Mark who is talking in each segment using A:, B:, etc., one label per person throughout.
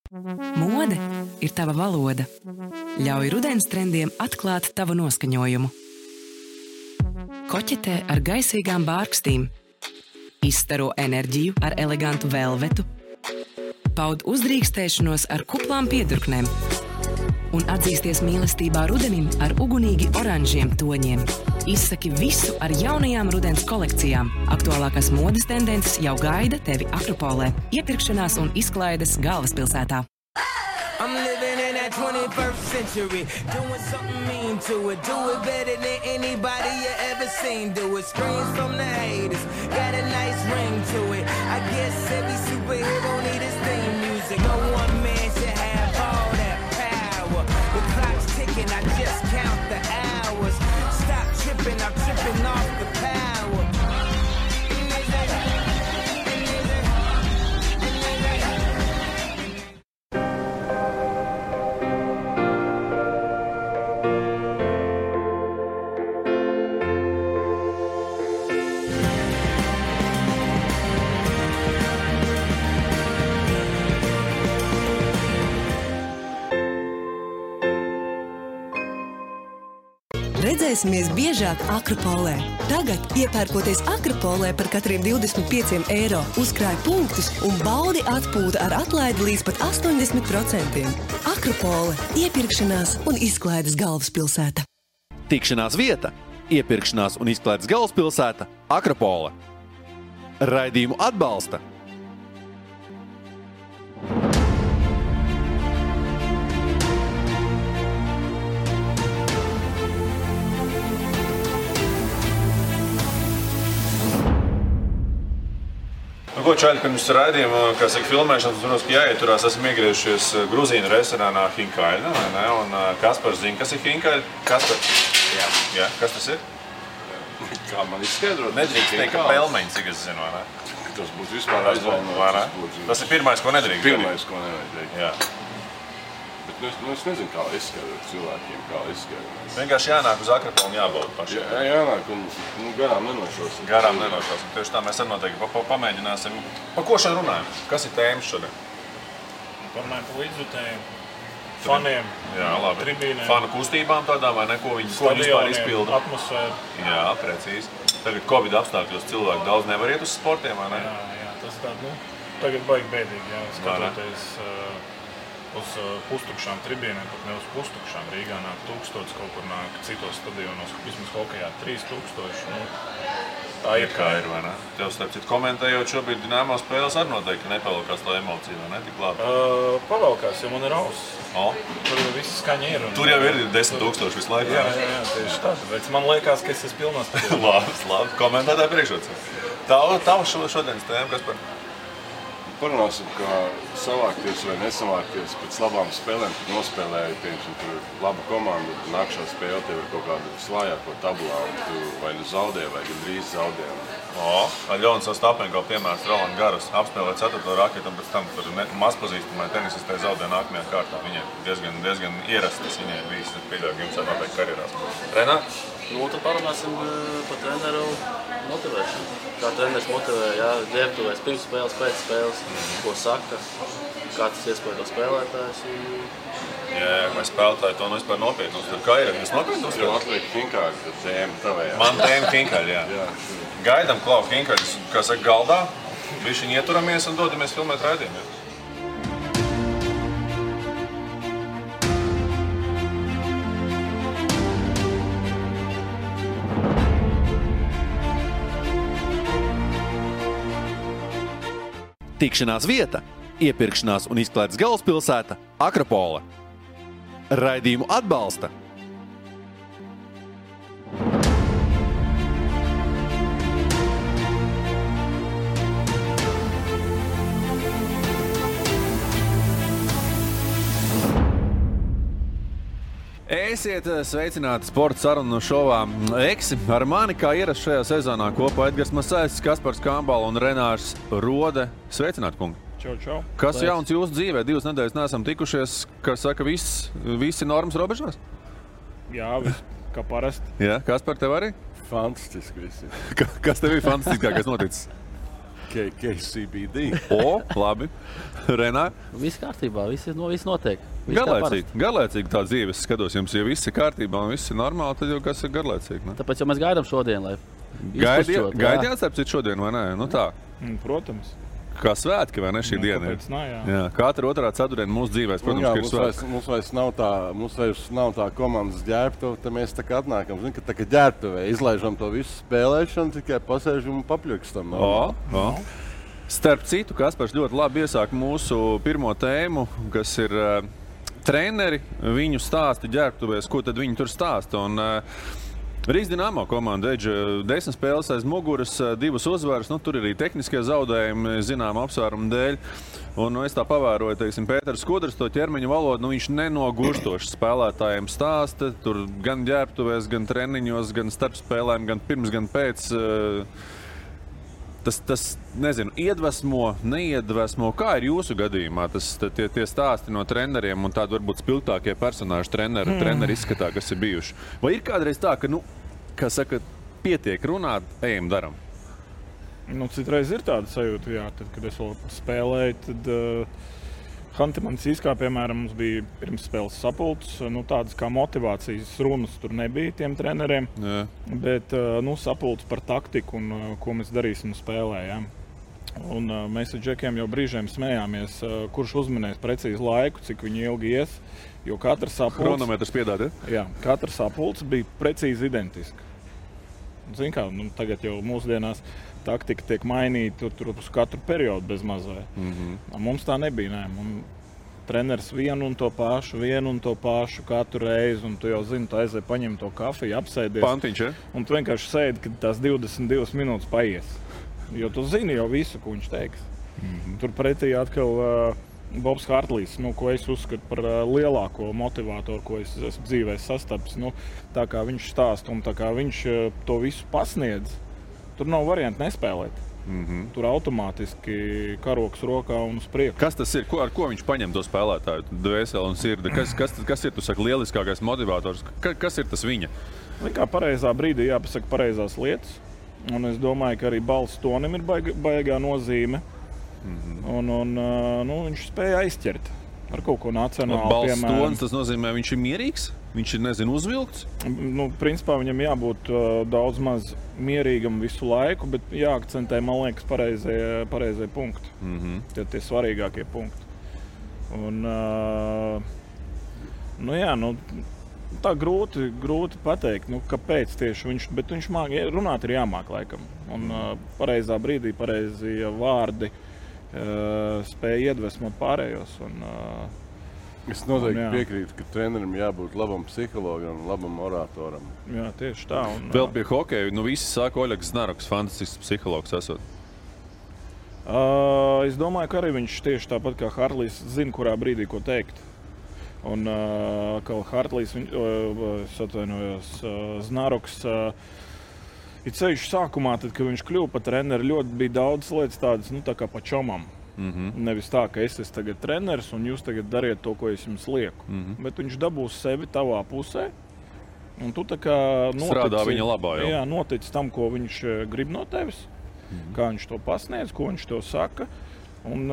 A: Mode ir tava valoda. Ļauj rudens trendiem atklāt tavu noskaņojumu. Koķetē ar gaisīgām bārkstīm. Izstaro enerģiju ar elegantu velvetu. Paud uzdrīkstēšanos ar kuplām piedurknēm. Un atzīsties mīlestībā rudenim ar ugunīgi oranžiem toņiem. Izsaki visu ar jaunajām rudens kolekcijām. Aktuālākās modes tendences jau gaida tevi Akropolē. Iepirkšanās un izklaides galvaspilsētā.
B: I'm living in that 21st century, doing something mean to it. Do it better than anybody you ever seen. Do it, screams from the haters, got a nice ring to it. I guess every superhero need his theme music. No one man should have all that power. The clock's ticking, I just count the hours. Stop tripping, I'm tripping off the power.
C: Redzēsimies biežāk Akropolē. Tagad, iepērkoties Akropolē par katriem 25 eiro, uzkrāj punktus un baudi atpūta ar atlaidi līdz pat 80%. Akropole – iepirkšanās un izklaides galvaspilsēta.
D: Tikšanās vieta – iepirkšanās un izklaides galvaspilsēta Akropole. Raidījumu atbalsta
E: Ko čaļi pirms raidījuma, kā saka, filmēšanas, protams, ka jāieturās, esam iegriežušies Gruzīnu restorānā Hinkaļa, vai ne? Un Kaspars zina, kas ir Hinkaļa? Kaspar? Jā, kas tas ir?
F: Kā man izskaidrot?
E: Nedrīkst teikt, ka pelmeņi, cik es zinu, vai ne?
F: Tas būtu vispār aizvainots.
E: Tas ir pirmais, ko nedrīkst.
F: Pirmais, ko nevajag teikt.
E: Jā.
F: Bet es nezinu, kā izskaidrot cilvēkiem, kā izskaidrot.
E: Vienkārši jānāk uz Akropolu un jābauda pašiem.
F: Jā, jānāk un garām nenošosim.
E: Garām nenošosim. Tieši tā mēs arī noteikti pamēģināsim. Pa ko šodien runājam? Kas ir tēmas šodien?
G: Parunājam par līdzjutējiem, faniem,
E: jā, labi.
G: Tribīnēm.
E: Fanu kustībām tādām vai ne, ko viņi vispār izpilda.
G: Atmosfēru.
E: Jā, precīzi. Tagad Covid apstākļos cilvēki daudz nevar iet uz sportiem, vai ne?
G: Jā, tas tā, tagad baigi bēdīgi, jā, skatoties uz pustukšām tribīnēm, pat ne uz pustukšām. Rīgā nāk 1000, kaut kur nāk citos stadionos, vismaz hokejā 3000. Tā ir
E: kā ir, vai ne? Tev starp citu komentējot šobrīd Dinamo spēles arī noteikti nepavalkās tā emocija, vai ne? Tik labi.
G: Pavalkās, jo man ir auss. Tur viss skaņa ir.
E: Tur jau ir 10 000 visu laiku.
G: Jā, tieši tā. Tāpēc man liekas, ka es esmu pilnās
E: stadionā. Labi, komentētāji priekšrots. Tava šodienas tēma, Kaspar?
F: Parunāsim, kā savākties vai nesavākties pēc labām spēlēm, kad nospēlēji, piemēram, tur ir laba komanda, nākšā spēle tev ir kaut kāda visvājāko tabulā, un tu vai nu zaudē, vai gandrīz zaudē.
E: Ļonis Ostapenko piemērs Roland Garros apspēlē 4. raketu, un pēc tam tur mazpazīstamai tenisistē zaudē nākamajā kārtā. Viņai diezgan ierastas, viņai visi pieļauj, jums noteikti karjerās. Renāt?
H: Tad parunāsim par treneru motivēšanu. Kā treneris motivē, ģērbtuvēs pirms spēles, pēc spēles, ko saka, kā tas iespēja to spēlētājs.
E: Jā, vai spēlētāji to vispār nopietni uztver. Kā ir? Jūs nopietni uztver?
F: Tev atliek Hinkaļa, tad tēma tavējā.
E: Man tēma Hinkaļa, jā. Gaidam Klau Hinkaļus, kā saka, galdā, bišķiņ ieturamies un dodamies filmēt raidījumu.
D: Tikšanās vieta – iepirkšanās un izklaides galvaspilsēta Akropole. Raidījumu atbalsta Esiet sveicināti sporta sarunu šovā Eksi. Ar mani kā ierasts šajā sezonā kopā Edgars Masaitis, Kaspars Kambala un Renārs Rode. Sveicināti, kungi!
G: Čau.
D: Kas jauns jūsu dzīvē? 2 nedēļas neesam tikušies, kas saka, visi normas robežās?
G: Jā, kā parasti.
D: Jā, Kaspar, tev arī?
F: Fantastiski visi.
D: Kas tev ir fantastiskākais noticis?
F: KCBD.
D: Labi. Renā?
H: Viss kārtībā, viss notiek.
D: Garlaicīgi tā dzīve. Es skatos, jums jau viss ir kārtībā un viss ir normāli, tad jau kas ir garlaicīgi, ne?
H: Tāpēc jau mēs gaidām šodien, lai
D: Gaidījāt apcīt šodien, vai ne? Nu tā.
G: Protams.
D: Kā svētki, vai ne, šī diena?
G: Kāpēc nā,
D: jā. Katra otrā ceturtdiena mūsu dzīvēs, protams, ir svētki.
F: Mums vairs nav tā komandas ģērbtuve, tad mēs tā kā atnākam, zin, ka tā kā ģērbtuvē izlaižam to visu spēlēšanu, tikai pasēžam un papļukstam.
D: Starp citu, Kaspars ļoti labi iesāk mūsu pirmo tēmu, kas ir treneri, viņu stāsti ģērbtuvēs, ko tad viņi tur stāsta. Un Rīgas Dinamo komanda Edža 10 spēles aiz muguras, 2 uzvaras, tur ir arī tehniskie zaudējumi, zinām apsvērumu dēļ. Un es tā pavēroju, teiksim, Pēters Skudrs, to ķermeņa valodu, viņš nenogurstoši spēlētājiem stāsta, tur gan ģērbtuvēs, gan treniņos, gan starp spēlēm, gan pirms, gan pēc. Tas nezinu, iedvesmo, neiedvesmo. Kā ir jūsu gadījumā tie stāsti no treneriem un tādi varbūt spilgtākie personāži treneri izskatā, kas ir bijuši? Vai ir kādreiz tā, ka, kā saka, pietiek runāt, ejam, daram?
G: Citreiz ir tāda sajūta, jā, tad, kad es vēl spēlēju, tad Hantimanciskā, piemēram, mums bija pirms spēles sapulces, tādas kā motivācijas runas tur nebija tiem treneriem, bet sapulces par taktiku un ko mēs darīsim spēlē, jā. Un mēs ar džekiem jau brīžiem smējāmies, kurš uzminēs precīzi laiku, cik viņi ilgi ies, jo katra sapulce...
D: Chronometrs piedād, ja?
G: Jā, katra sapulce bija precīzi identiska. Zin kā, tagad jau mūsdienās taktika tiek mainīta tur uz katru periodu bez mazai. Mums tā nebija, nē. Treneris vienu un to pašu katru reizi, un tu jau zini, tu aizēji paņem to kafiju, apsēdies.
D: Pantiņš, ja?
G: Un tu vienkārši sēdi, kad tās 22 minūtes paies. Jo tu zini jau visu, ko viņš teiks. Tur pretī atkal Bobs Hartlīs, ko es uzskatu par lielāko motivātoru, ko es esmu dzīvē sastapis. Tā kā viņš stāsta un tā kā viņš to visu pasniedz, tur nav variantu nespēlēt. Tur automātiski karoks rokā un uz priekšu.
D: Kas tas ir? Ar ko viņš paņem to spēlētāju dvēseli un sirdi? Kas ir, tu saki, lieliskākais motivators? Kas ir tas viņa?
G: Kā pareizā brīdī jāpasaka pareizās lietas. Un es domāju, ka arī balss tonim ir baigā nozīme. Un viņš spēja aizķert ar kaut ko nacionālu,
D: piemēram. Balss tonis, tas nozīmē, viņš ir mierīgs? Viņš ir, uzvilkts?
G: Principā viņam jābūt daudz maz mierīgam visu laiku, bet jāakcentē, man liekas, pareizie punkti. Tie svarīgākie punkti. Un, tā grūti pateikt, kāpēc tieši viņš, bet viņš runāt ir jāmāk laikam. Un pareizā brīdī, pareizie vārdi spēja iedvesmot pārējos.
F: Es noteikti piekrītu, ka trenerim jābūt labam psihologam un labam oratoram.
G: Jā, tieši tā.
D: Vēl pie hokeja, visi saka, Oļegs Znaroks, fantastisks psihologs esot.
G: Es domāju, ka arī viņš tieši tāpat kā Hartlīs zina, kurā brīdī ko teikt. Un kā Hartlīs, Znaroks, ir ceļš sākumā, tad, kad viņš kļuva par treneri, ļoti bija daudz lietas tādas, tā kā pa čomam. Nevis tā, ka es esmu tagad treneris un jūs tagad dariet to, ko es jums lieku. Bet viņš dabūs sevi tavā pusē. Un tu tā kā
D: strādā viņa labā jau.
G: Jā, notici tam, ko viņš grib no tevis. Kā viņš to pasniedz, ko viņš to saka. Un,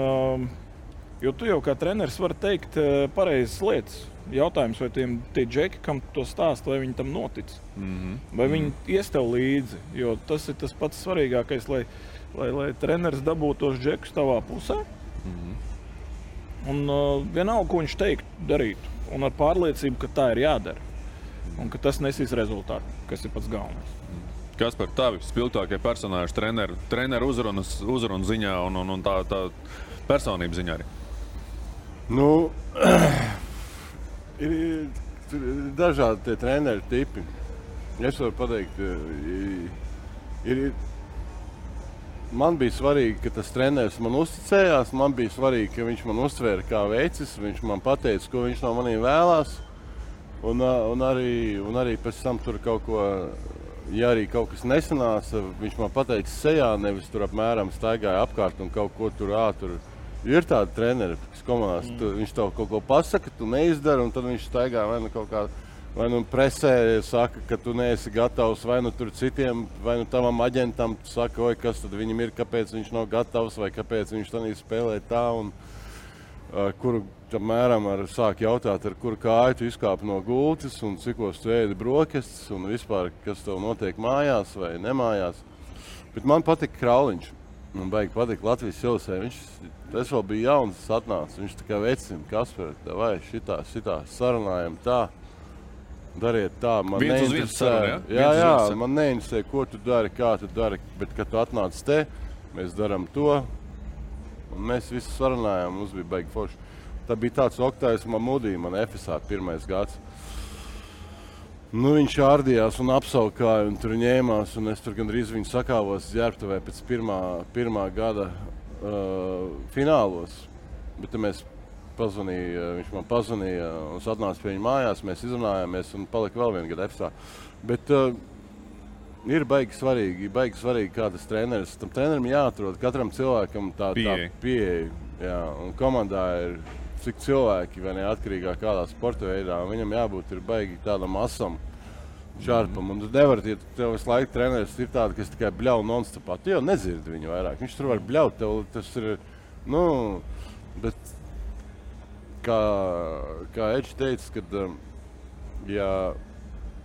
G: jo tu jau kā treneris vari teikt pareizas lietas. Jautājums, vai tie džeki, kam to stāst, vai viņi tam notic. Vai viņi ies tev līdzi. Jo tas ir tas pats svarīgākais, lai treneris dabūtu tos džekus tavā pusē. Un vienalga, ko viņš teikt, darīt. Un ar pārliecību, ka tā ir jādara. Un ka tas nesīs rezultātu, kas ir pats galvenais.
D: Kas par tavi spilgtākie personāži treneru uzrunu ziņā un tā personību ziņā arī?
F: Ir dažādi tie treneru tipi. Es varu pateikt, man bija svarīgi, ka tas treneris man uzticējās, man bija svarīgi, ka viņš man uztvēra kā veicis, viņš man pateica, ko viņš no maniem vēlās, un arī pēc tam tur kaut ko, ja arī kaut kas nesanāca, viņš man pateica sejā, nevis tur apmēram staigāja apkārt un kaut ko tur. Ir tādi treneri, kas komandās, viņš tev kaut ko pasaka, tu neizdari, un tad viņš staigā vai kaut kā vai nu presē saka, ka tu neesi gatavs, vai nu tur citiem, vai nu tavam aģentam saka, oi, kas tad viņam ir, kāpēc viņš nav gatavs, vai kāpēc viņš tanī spēlē tā, un kuru apmēram sāk jautāt, ar kuru kāju tu izkāpi no gultas, un cikos tu ēdi brokastis, un vispār, kas tev notiek mājās vai nemājās. Bet man patika Krauliņš. Man baigi patika Latvijas Silsē. Es vēl biju jauns, tas atnāca. Viņš tā kā vecina, Kasper, vai šitā, sarunājam tā, dariet tā. Man neinteresē, man neinteresē, ko tu dari, kā tu dari, bet kad tu atnāc te, mēs daram to, un mēs visi sarunājām, mums bija baigi forši. Tā bija tāds Oktājs Mamudī, man FSA 1. gads. Nu, viņš ārdījās un apsaukāja, un tur ņēmās, un es tur gandrīz viņu sakāvos ģērbtuvē pēc pirmā gada finālos. Bet mēs viņš man pazvanīja, un es atnācu pie viņa mājās, mēs izrunājāmies, un palika vēl vienu gadu FSA. Bet ir baigi svarīgi, kā tas treneris. Tam trenerim jāatrod katram cilvēkam tā pieeja. Jā, un komandā ir cik cilvēki, vai neatkarīgā kādā sporta veidā, un viņam jābūt ir baigi tādam asam, šarpam. Un tu nevari, ja tev visu laiku treneris ir tāda, kas tikai bļauj non-stopā. Tu jau nedzirdi viņu vairāk. Viņš tur var bļaut, tev tas ir, bet kā Edži teica, kad ja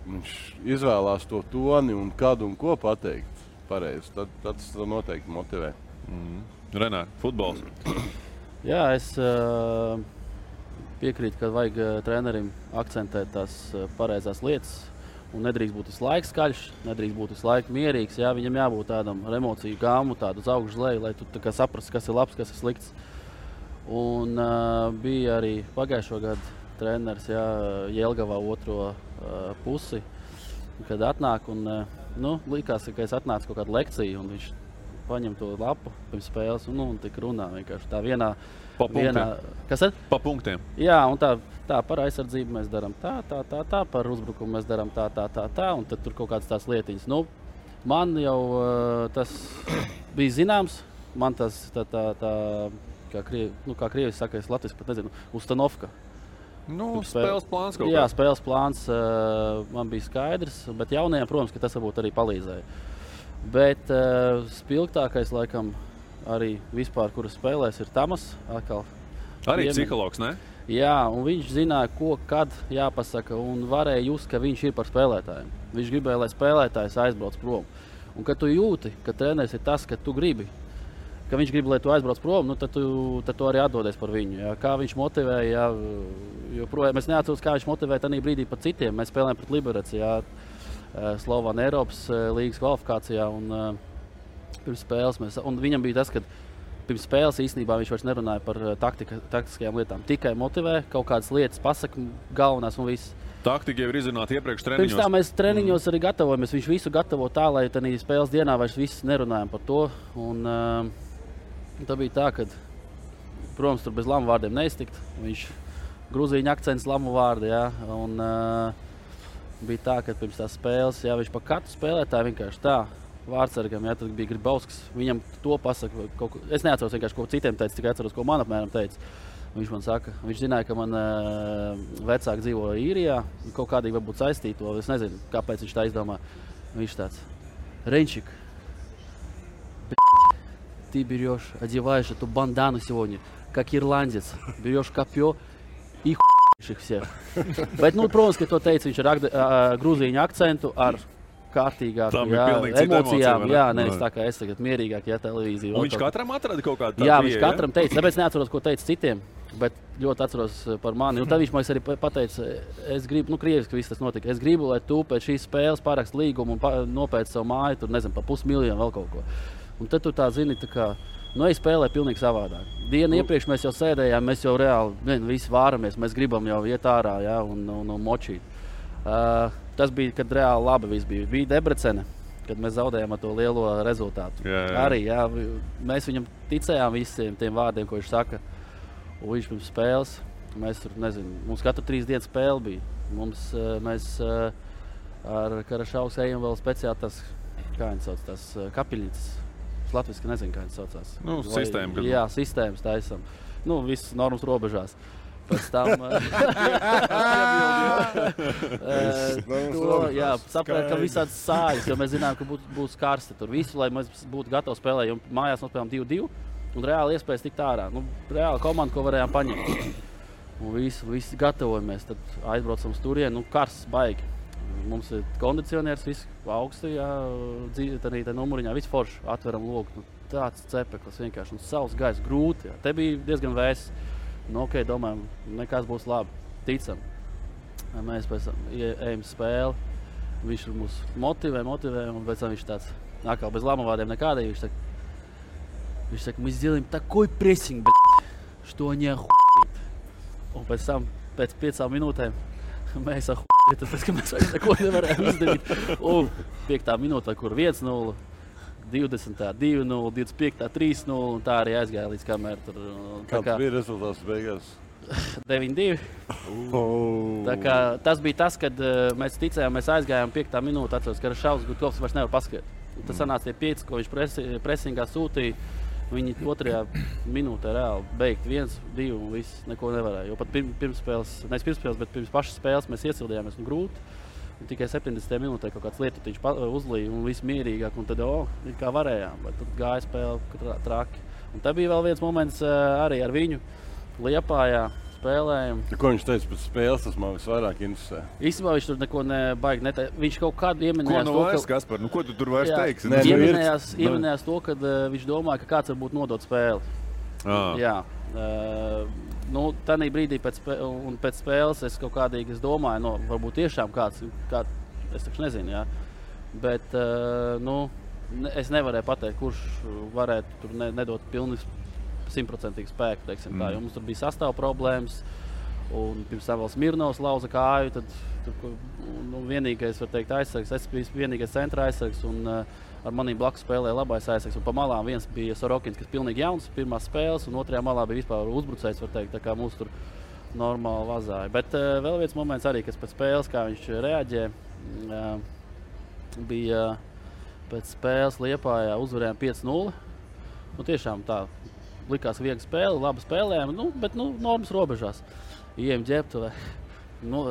F: viņš izvēlās to toni un kādu un ko pateikt pareizi, tad tas noteikti motivē.
D: Renār, futbols.
H: Jā, es piekrītu, ka vajag trenerim akcentēt tās pareizās lietas un nedrīkst būt visu laiku skaļš, nedrīkst būt visu laiku mierīgs. Jā, viņam jābūt tādam ar emociju gāmu, tādu uz augšu leju, lai tu saprastu, kas ir labs, kas ir slikts. Un bija arī pagājušo gadu treneris, jā, Jelgavā otro pusi, kad atnāk un likās, ka es atnācu kaut kādu lekciju un viņš paņem to lapu pirms spēles un tik runā vienkārši tā vienā. Kas ir?
D: Pa punktiem.
H: Jā, un tā par aizsardzību mēs darām tā, par uzbrukumu mēs darām tā, un tad tur kaut kādas tās lietiņas. Man jau tas bija zināms, man tas kā krievis saka, es latviski pat nezinu, ustanovka.
D: Spēles plāns kaut kā.
H: Jā, spēles plāns man bija skaidrs, bet jaunajiem, protams, ka tas varbūt arī palīdzēja. Bet spilgtākais, laikam, arī vispār, kuras spēlēs, ir Tamas.
D: Arī psihologs, ne?
H: Jā, un viņš zināja, ko, kad jāpasaka, un varēja just, ka viņš ir par spēlētājiem. Viņš gribēja, lai spēlētājs aizbrauc prom. Un kad tu jūti, ka treneris ir tas, ka tu gribi, ka viņš grib, lai tu aizbrauc prom, tad tu arī atdodies par viņu. Jā. Kā viņš motivēja, jo es neatceros, kā viņš motivēja tajā brīdī par citiem. Mēs spēlējām pret Liberec, Slovāna Eiropas līgas kvalifikācijā, un pirms spēles un viņam bija tas, ka pirms spēles īstenībā viņš vairs nerunāja par taktiskajām lietām. Tikai motivē, kaut kādas lietas pasaka galvenās un viss.
D: Taktika jau ir izrunāta iepriekš treniņos.
H: Pirms tā mēs treniņos arī gatavojamies. Viņš visu gatavo tā, lai tādā spēles dienā vairs viss nerunājam par to. Un tā bija tā, ka, protams, tur bez lamu vārdiem neiztikt. Viņš grūzīņa akcents lamu vārdi, jā. Un bija tā, ka pirms tās spēles, jā, viņš pa katru spēlētāju vienkārši tā. Vārdsargam, jā, tad bija Gribausks. Viņam to pasaka, es neatceros vienkārši, ko citiem teica, tikai atceros, ko man apmēram teica. Viņš man saka, viņš zināja, ka man vecāki dzīvo Īrijā, kaut kādīgi varbūt saistīto, es nezinu, kāpēc viņš tā izdomā. Viņš tāds, Ренчик, ты берешь, одеваешь эту бандану сегодня, как ирландец, берешь копье и их всех. Bet, protams, ka to teica viņš ar grūzīņu akcentu, ar kārtīgāku emocijām. Jā, nevis tā kā es tagad mierīgāk, televīzija.
D: Un viņš katram atrada kaut kādu tādu.
H: Jā, viņš katram teica, tāpēc neatceros, ko teica citiem, bet ļoti atceros par mani. Un tad viņš man arī pateica, es gribu, krieviski viss tas notika, es gribu, lai tu pēc šīs spēles parakst līgumu un nopēc savu māju, tur nezinu, pa 500 000 vēl kaut ko. Un tad tu tā zini, tā kā, es spēlēju pilnīgi savādāk. Dienu iepriekš mēs jau sēdējām, mēs jau reāli visi vāramies, mēs gribam jau iet ārā, jā, un močīt. Tas bija, kad reāli labi viss bija. Bija Debrecene, kad mēs zaudējām ar to lielo rezultātu.
D: Jā.
H: Arī, jā, mēs viņam ticējām visiem tiem vārdiem, ko viņš saka. Un viņš pirms spēles, mēs tur, nezinu, mums katru 3 dienas spēle bija. Mēs ar Karašaus ejam vēl speciāli tas, kā viņi sauc, tas kapiļņas. Latviski nezinu, kā viņi saucās.
D: Sistēma.
H: Jā, sistēmas taisam. Viss normas robežās. pēc tam saprāt, ka visāds sāļas, jo mēs zinām, ka būs karsti tur visu, lai mēs būtu gatavi spēlēt, jo mājās nospēlējām 2-2 un reāli iespējas tikt ārā. Reāli komanda, ko varējām paņemt. Un visi gatavojamies, tad aizbraucam uz turieni, karsts baigi. Mums ir kondicionieris, viss augsti, arī tā numuriņā, viss forši, atveram logu. Tāds cepeklis vienkārši, un savs gaiss grūti. Jā. Te bija diezgan vēss. Domājam, nekas būs labi, ticam. Mēs pēc tam ejam spēli, viņš mūs motivē, un pēc tam viņš tāds, atkal bez lama vārdiem nekādīgi, viņš saka, мы сделаем такой прессинг, что они охуеют. Un pēc tam, pēc 5 minūtēm, mēs охуели, tāpēc, ka mēs vairs neko nevarējām izdarīt. 5. minūtē, kur 1-0, 20. 2-0, 25. 3-0, un tā arī aizgāja līdz kamēr tur.
F: Kāds bija rezultāts beigās?
H: 9-2. Tas bija tas, kad mēs ticējām, mēs aizgājām 5. minūtē, atceros, ka Šaus Gutkovs vairs nevar paskriet. Tas sanāca tie 5, ko viņš presingā sūtīja. Viņi 2. minūtē reāli beigt 1-2 un viss neko nevarēja. Jo pat pirms pašas spēles mēs iesildījāmies un grūti. Un tikai 70. minūtē kaut kāds lietutiņš uzlīja un viss mierīgāk. Un tad kā varējām, bet tad gāja spēle traki. Un tad bija vēl viens moments arī ar viņu Liepājā spēlējam.
F: Ko viņš teica pēc spēles, tas man visvairāk interesē?
H: Īstenībā viņš tur neko nebaigi neteica. Viņš kaut kādu ieminējās
D: to, ka... Kaspar, ko tu tur vairs teiksi?
H: Ieminējās to, ka viņš domāja, ka kāds varbūt nodot spēli. Jā. Tanī brīdī pēc spēles es kaut kādīgi domāju, varbūt tiešām kāds, es taču nezinu, jā. Bet, es nevarēju pateikt, kurš varētu tur nedot pilnīgi 100% spēku, teiksim tā, jo mums tur bija sastāv problēmas, un pirms tam vēl Smirnovs lauza kāju, tad vienīgais, var teikt, aizsargs, es biju vienīgais centra aizsargs, un ar manī blakus spēlēja labais aizsargs, un pa malām viens bija Sorokins, kas pilnīgi jauns, pirmās spēles, un otrajā malā bija vispār uzbrucējs, var teikt, tā kā mūs tur normāli vazāja. Bet vēl viens moments arī, kas pēc spēles, kā viņš reaģē, bija pēc spēles Liepājā uzvarējām 5-0, tiešām tā, likās viegla spēle, labi spēlējām, bet normas robežās. Ejam ģērbtuvē,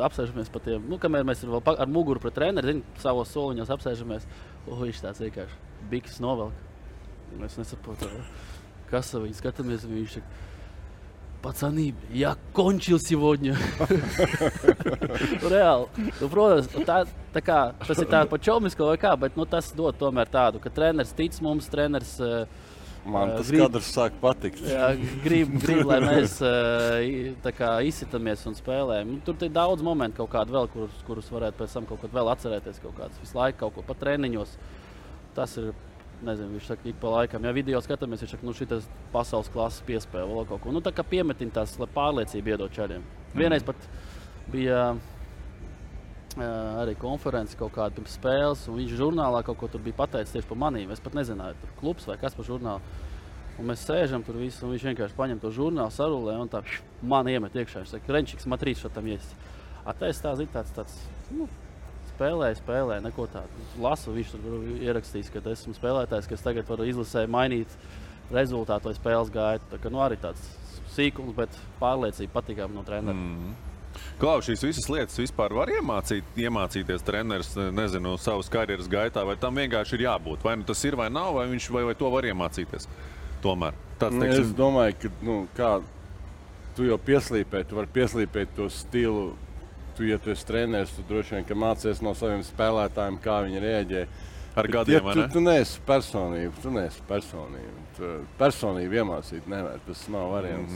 H: apsēžamies pa tiem, kamēr mēs vēl ar muguru pret treneri, savos soliņos apsēžamies, viņš tāds vienkārši biks novelk. Mēs nesaprotam, kas viņi skatāmies, viņš saka, pacani, я кончил сегодня. Reāli. Protams, tas ir tā pa čomisko vai kā, bet tas dod tomēr tādu, ka treneris tic mums, treneris
F: man tas kadrs sāk patikt.
H: Jā, grib, lai mēs izsitamies un spēlējam. Tur ir daudz momentu kaut kādu vēl, kurus varētu pēc tam kaut ko vēl atcerēties, kaut kāds visu laiku kaut ko pat treniņos. Tas ir, nezinu, viņš saka, ik pa laikam. Ja video skatāmies, viņš saka, šitas pasaules klases piespēle vēl kaut ko. Tā kā piemetiņ tās, lai pārliecību iedot čaļiem. Vienreiz pat bija arī konferences kaut kāda pirms spēles, un viņš žurnālā kaut ko tur bija pateicis tieši par manīm. Es pat nezināju, tur klubs vai kas par žurnālu. Un mēs sēžam tur visu, un viņš vienkārši paņem to žurnālu, sarulē, un tā man iemet iekšā. Viņš saka, Renčiks, matrīt šatam ies. Es tā zinu tāds spēlēju, neko tādu. Lasu, viņš tur ierakstīs, ka esmu spēlētājs, kas tagad var izlasē mainīt rezultātu vai spēles gaitu. Tā kā arī tāds sīkums, bet pārliecība patīkām no trenera.
D: Klau, šīs visas lietas vispār var iemācīties treneris, nezinu, savas karjeras gaitā, vai tam vienkārši ir jābūt? Vai tas ir vai nav, vai viņš vai to var iemācīties? Tomēr.
F: Es domāju, ka, kā tu jau pieslīpēji, tu vari pieslīpēt to stilu. Ja tu esi treneris, tu droši vien, ka mācies no saviem spēlētājiem, kā viņi reaģē.
D: Ar gadiem, vai ne?
F: Tu neesi personība. Personību iemācīt nevar, tas nav variants.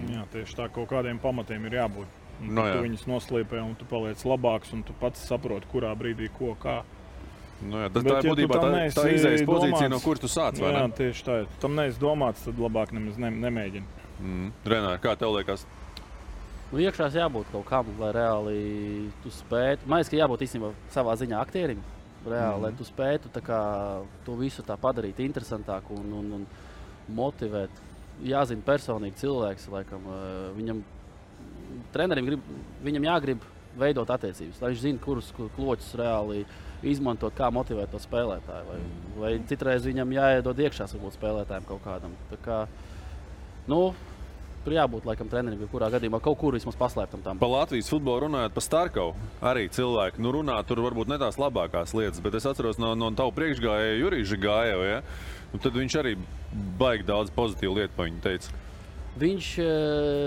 G: Jā, tieši tā, kaut kādiem pamatiem ir jābūt. Tu viņus noslīpē, un tu paliec labāks, un tu pats saproti, kurā brīdī ko, kā.
D: Tas tā ir būtībā tā izējas pozīcija, no kuras tu sāc, vai ne?
G: Jā, tieši tā. Tam neesi domāts, tad labāk nemaz nemēģini.
D: Renāri, kā tev liekas?
H: Iekšās jābūt kaut kam, lai reāli tu spētu. Man liekas, ka jābūt īstenībā savā ziņā aktierim, reāli, lai tu spētu to visu tā padarīt interesantāku un motivēt. Jāzina personīgi cilvēks, laikam, trenerim viņam jāgrib veidot attiecības, lai viņš zina, kurus kloķus reāli izmantot, kā motivēt to spēlētāju. Vai citreiz viņam jāiedod iekšās varbūt spēlētājiem kaut kādam. Tā kā, tur jābūt laikam trenerim, kurā gadījumā kaut kur vismaz paslēptam tam.
D: Pa Latvijas futbolu runājot par Starkovu, arī cilvēki runā tur varbūt ne tās labākās lietas, bet es atceros no tavu priekšgājēju Juriju Žigājevu, ja? Tad viņš arī baigi daudz pozitīvu lietu pa viņu teica.
H: Viņš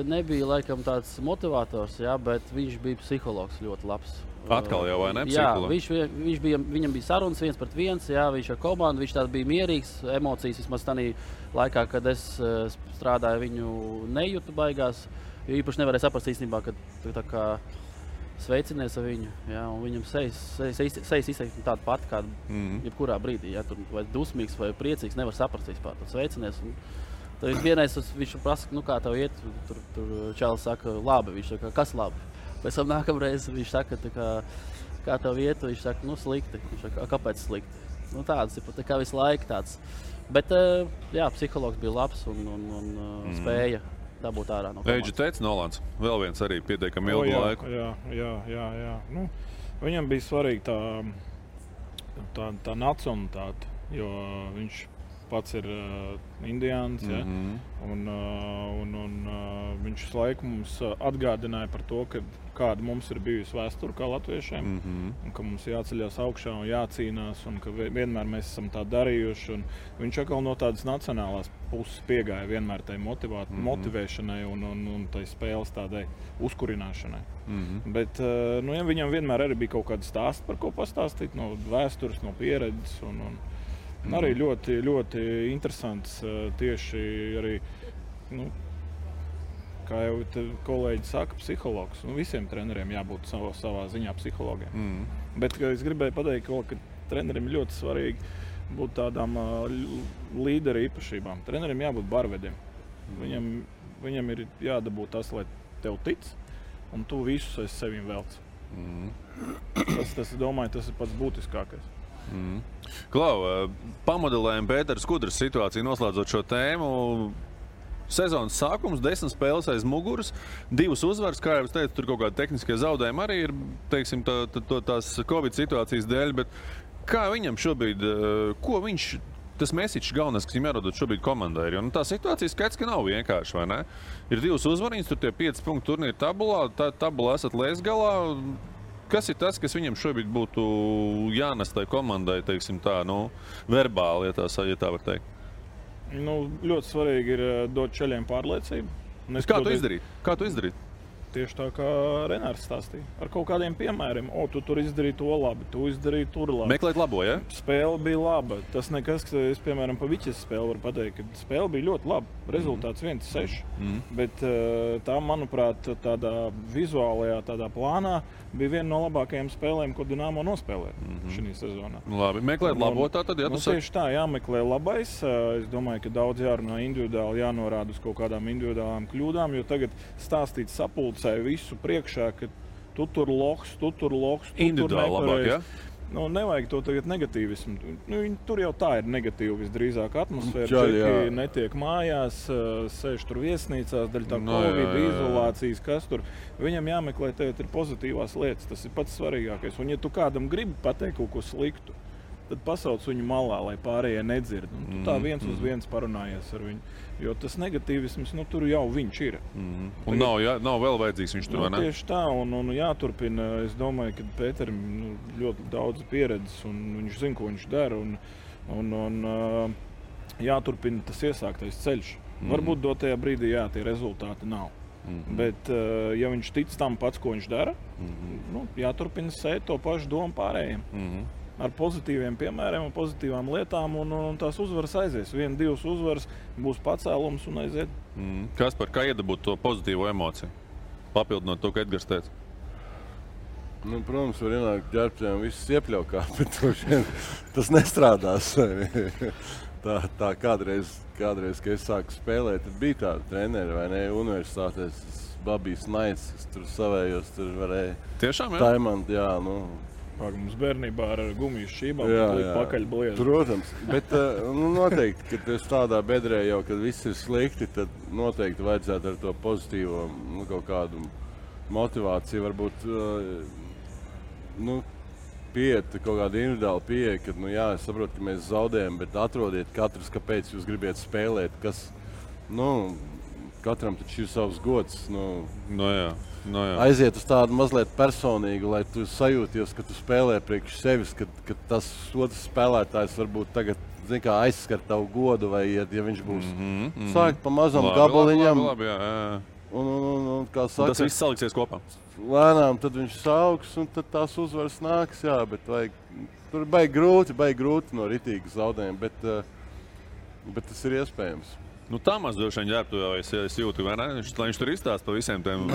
H: nebija laikam tāds motivators, ja, bet viņš bija psihologs ļoti labs.
D: Atkal jau, vai ne?
H: Jā, viņam bija sarunas 1-1, jā, viņš ar komandu, viņš tāds bija mierīgs, emocijas vismaz tādā laikā, kad es strādāju, viņu nejūtu baigās, jo īpaši nevarēja saprast īstenībā, ka tā kā sveicinies ar viņu, jā, un viņam sejas izteikti tāda pati, kāda jebkurā brīdī, jā, tur vai dusmīgs vai priecīgs, nevar saprast vispār, tad sveicinies. Tad vienreiz viņš prasa, kā tev iet, tur Čālis saka, labi, viņš saka, kas labi? Pēc tam nākamreiz viņš saka, kā tev iet, viņš saka, slikti. Viņš saka, kāpēc slikti? Tāds ir tā kā visu laiku tāds. Bet, jā, psihologs bija labs un spēja dabūt ārā no komandas.
D: Eidži teica Nolans, vēl viens arī pietiekami ilgu laiku.
G: Jā. Viņam bija svarīga tā nacionalitāte, jo viņš pats ir indiāns, ja? un viņš visu laiku mums atgādināja par to, kāda mums ir bijusi vēsture kā latviešiem, un ka mums jāceļās augšā un jācīnās, un ka vienmēr mēs esam tā darījuši. Un viņš atkal no tādas nacionālās puses piegāja vienmēr tai motivēšanai un tai spēles tādai uzkurināšanai. Bet ja viņam vienmēr arī bija kaut kāda stāsta, par ko pastāstīt, no vēstures, no pieredzes. Un arī ļoti, ļoti interesants tieši arī, kā jau kolēģi saka, psihologs. Visiem treneriem jābūt savā ziņā psihologiem. Bet es gribēju pateikt, ka trenerim ļoti svarīgi būt tādām līderu īpašībām. Trenerim jābūt barvediem. Viņam ir jādabū tas, lai tev tic, un tu visus aiz sevim velc. Tas, domāju, tas ir pats būtiskākais.
D: Klau, pamodelējam Pētera Skudras situāciju, noslēdzot šo tēmu. Sezonas sākums, 10 spēles aiz muguras, 2 uzvaras, kā jau es teicu, tur kaut kādi tehniskie zaudējumi arī ir, teiksim, tās Covid situācijas dēļ, bet kā viņam šobrīd, ko viņš, tas mesiķis galvenais, kas viņam jārodot šobrīd komandai ir, jo tā situācija skaidrs, ka nav vienkārši, vai ne? Ir 2 uzvariņas, tur tie 5 punktu turnīri tabulā, tabulā esat lēs galā. Kas ir tas, kas viņam šobrīd būtu jānes tai komandai, teiksim tā, verbāli, ja tā var teikt?
G: Ļoti svarīgi ir dot ceļiem pārliecību.
D: Kā tu izdarīt?
G: Tieši tā kā Renārs stāstīja. Ar kaut kādiem piemēriem. Tu tur izdarīji to labi, tu izdarīji tur labi.
D: Meklēt labo, ja?
G: Spēle bija laba. Tas nekas, ka es, piemēram, pa Viķes spēli varu pateikt, ka spēle bija ļoti laba. Rezultāts 1-6. Bet tā, manuprāt, tādā vizuālajā tādā plānā bija viena no labākajām spēlēm, ko Dinamo nospēlēja šī sezonā.
D: Labi, meklēt labo tātad, ja tu saki?
G: Tieši tā, jāmeklē labais. Es domāju, ka daudz jārunā individuāli, jānorāda uz kaut kādām individuālām kļūdām, jo tagad stāstīt sapulcē visu priekšā, ka tu tur loks,
D: individuāli labāk, ja?
G: Nevajag to tagad negatīvismu. Tur jau tā ir negatīva visdrīzāk atmosfēra. Džeki netiek mājās, sēž tur viesnīcās, daļa tā Covid, izolācijas, kas tur. Viņam jāmeklē tagad ir pozitīvās lietas, tas ir pats svarīgākais. Un ja tu kādam gribi pateikt kaut ko sliktu, tad pasauc viņu malā, lai pārējie nedzird. Un tu tā viens uz viens parunājies ar viņu. Jo tas negatīvisms, tur jau viņš ir.
D: Un nav vēl vajadzīgs viņš tur, vai ne?
G: Tieši tā, un jāturpina. Es domāju, ka Pēterim ļoti daudz pieredzes, un viņš zina, ko viņš dara. Un jāturpina tas iesāktais ceļš. Varbūt dotajā brīdī, tie rezultāti nav. Bet, ja viņš tic tam pats, ko viņš dara, jāturpina sēt to pašu domu pārējiem. Ar pozitīviem piemēriem un pozitīvām lietām, un tās uzvaras aizies. 1-2 uzvaras būs pacēlums un aiziet.
D: Kaspar, kā iedabūt to pozitīvo emociju? Papildinot to, ka Edgars teica.
F: Protams, var ienākt ģērbtiem visus iepļaukā, bet tas nestrādās. tā kādreiz, kad es sāku spēlēt, tad bija tāda treneri, vai ne, universitātēs, Babijs Naids, kas tur savējos, tur varēja
D: tiešām, jā?
F: Taimant,
G: Mums bērnībā ar gumiju šķībām pakaļ bliezi.
F: Protams, bet noteikti, kad es tādā bedrē jau, kad viss ir slikti, tad noteikti vajadzētu ar to pozitīvo kaut kādu motivāciju, varbūt pieiet kaut kāda individuāla pieeja, kad, es saprotu, ka mēs zaudējam, bet atrodiet katrs, kāpēc jūs gribiet spēlēt, kas, katram taču ir savs gods.
D: Jā.
F: Aiziet uz tādu mazliet personīgu, lai tu sajūties, ka tu spēlē priekš sevis, ka tas otrs spēlētājs varbūt tagad aizskar tavu godu, vai ja viņš būs sākt pa mazam gabaliņam.
D: Labi, jā.
F: Un kā saka,
D: tas viss saliksies kopā.
F: Lēnām tad viņš sauks, un tad tās uzvaras nāks, jā, bet tur baigi grūti no ritīgas zaudējuma, bet tas ir iespējams.
D: Tā maz droši vien ģērbtuvē es jūtu, vai ne? Lai viņš tur izstāst pa visiem tiem.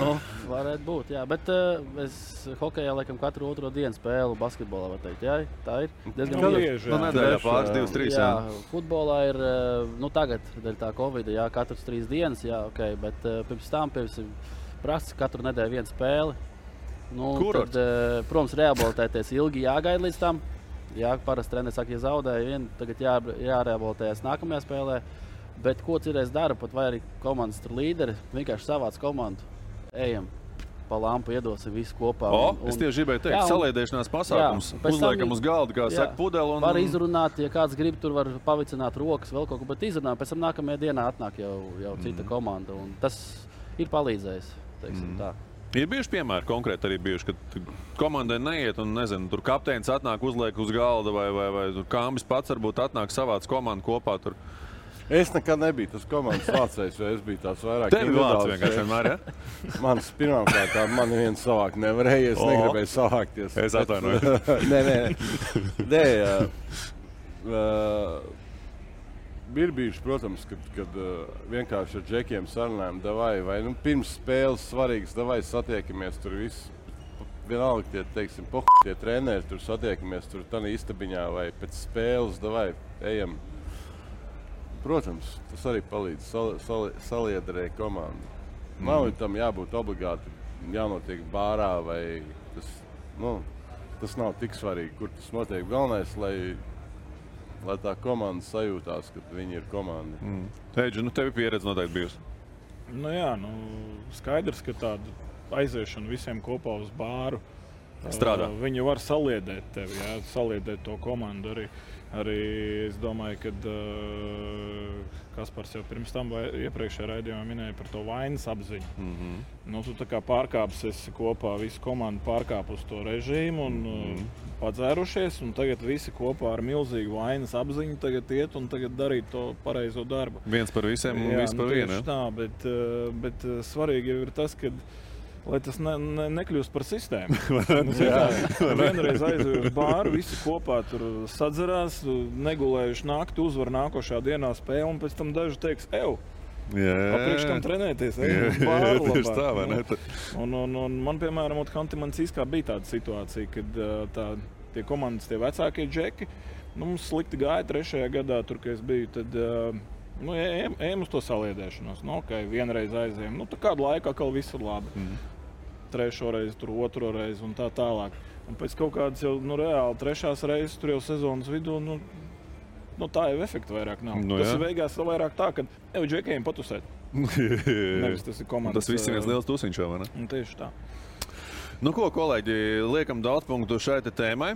H: Varētu būt, jā, bet es hokejā laikam katru otro dienu spēlu basketbolā, var teikt, jā, tā ir diezgan bieži.
D: Nedēļā pāris 2-3, jā.
H: Futbolā ir, tagad, dēļ tā Covida, jā, katrs 3 dienas, jā, ok, bet pirms tam prasa katru nedēļu vienu spēli. Tad, protams, rehabilitēties ilgi jāgaida līdz tam. Jā, parasti treneris saka, ja zaudēja vienu, tagad jārehabilitējas nākamajā spēlē. Bet ko citreiz dara, pat vai arī komandas līderi, vienkārši savāc komandu, ejam pa lampu, iedosim visu kopā.
D: Es tieši gribēju teikt, saliedēšanās pasākums, uzliekam uz galda, kā saka, pudeli.
H: Var izrunāt, ja kāds grib, tur var pavicināt rokas, vēl kaut ko, bet izrunāt, pēc tam nākamajā dienā atnāk jau cita komanda, un tas ir palīdzējis, teiksim tā.
D: Ir bijuši piemēri konkrēti arī bijuši, kad komandai neiet un, nezinu, tur kapteinis atnāk, uzliek uz galda vai tur Kāmbis pats varbūt atnāk savāc komandu kopā tur.
F: Es nekad nebiju tas komandas vācējs, vai es biju tāds vairāk
D: individuāls. Tevi vāc vienkārši vienmēr, ja?
F: Manis pirmkārt, mani viens savākt nevarēja, es negribēju savākties.
D: Es atvainoju.
F: Nē. Ir bijuši, protams, kad vienkārši ar džekiem sarunājam, vai pirms spēles svarīgas, satiekamies tur viss. Vienalga tie, teiksim, tie treneri, tur satiekamies tur tādā istabiņā vai pēc spēles, ejam. Protams, tas arī palīdz saliederēt komandu. Nav tam jābūt obligāti jānotiek bārā vai tas nav tik svarīgi, kur tas notiek. Galvenais, lai tā komanda sajūtās, ka viņi ir komanda.
D: Eidži, tevi pieredze noteikti bijusi?
G: Jā, skaidrs, ka tāda aiziešana visiem kopā uz bāru
D: strādā.
G: Viņi var saliedēt tevi, jā, saliedēt to komandu arī. Arī es domāju, ka Kaspars jau pirms tam iepriekšējā raidījumā minēja par to vainas apziņu. Tu tā kā pārkāpsi esi kopā, visu komandu pārkāp uz to režīmu un padzērušies, un tagad visi kopā ar milzīgu vainas apziņu tagad iet un tagad darīt to pareizo darbu.
D: Viens par visiem un viss par vienu.
G: Tā, bet svarīgi jau ir tas, ka lai tas nekļūst par sistēmu. Vienreiz aizēju uz bāru, visi kopā tur sadzerās, negulējuši nakti, uzvar nākošā dienā spēli, un pēc tam daži teiks, priekš tam trenēties, uz bāru labāk. Un man, piemēram, Hanti-Mansīskā bija tāda situācija, kad tie komandas, tie vecākie džeki, mums slikti gāja 3. gadā, tur, kad es biju, tad ejam uz to saliedēšanos. Vienreiz aizējam. Kādu laiku atkal viss ir labi. 3. reizi, tur 2. reizi un tā tālāk. Un pēc kaut kādas jau reāli 3. reizes, tur jau sezonas vidū, tā jau efekta vairāk nav. Tas ir beigās vairāk tā, ka džekiem patusēt. Nevis tas ir komandas.
D: Tas viss ir viens liels tusiņš, vai ne?
G: Tieši tā.
D: Ko, kolēģi, liekam daudz punktu šai tēmai.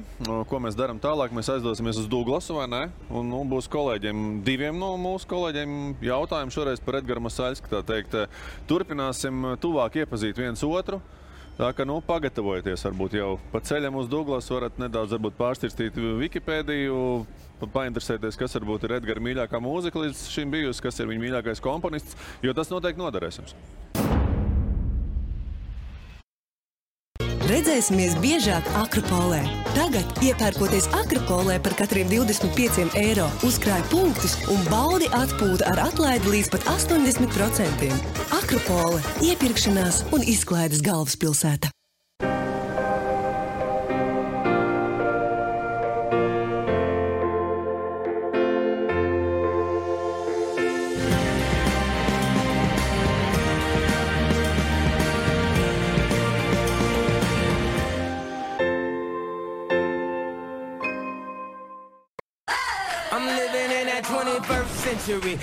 D: Ko mēs darām tālāk? Mēs aizdosimies uz Douglasu, vai ne? Un būs kolēģiem, 2 no mūsu kolēģiem jautājumi šoreiz par Edgaru Masaļsku, tā teikt. Turpināsim tuvāk iepazīt viens otru. Tā kā, pagatavojieties varbūt jau pa ceļam uz Douglasu, varat nedaudz varbūt pārstirstīt Wikipēdiju, painteresēties, kas varbūt ir Edgara mīļākā mūzika līdz šim bijusi, kas ir viņa mīļākais komponists, jo tas noteikti noderēs jums.
C: Redzēsimies biežāk Akropolē. Tagad, iepērkoties Akropolē par katriem 25 eiro, uzkrāj punktus un baudi atpūtu ar atlaidi līdz pat 80%. Akropole – iepirkšanās un izklaides galvaspilsēta.
B: Doing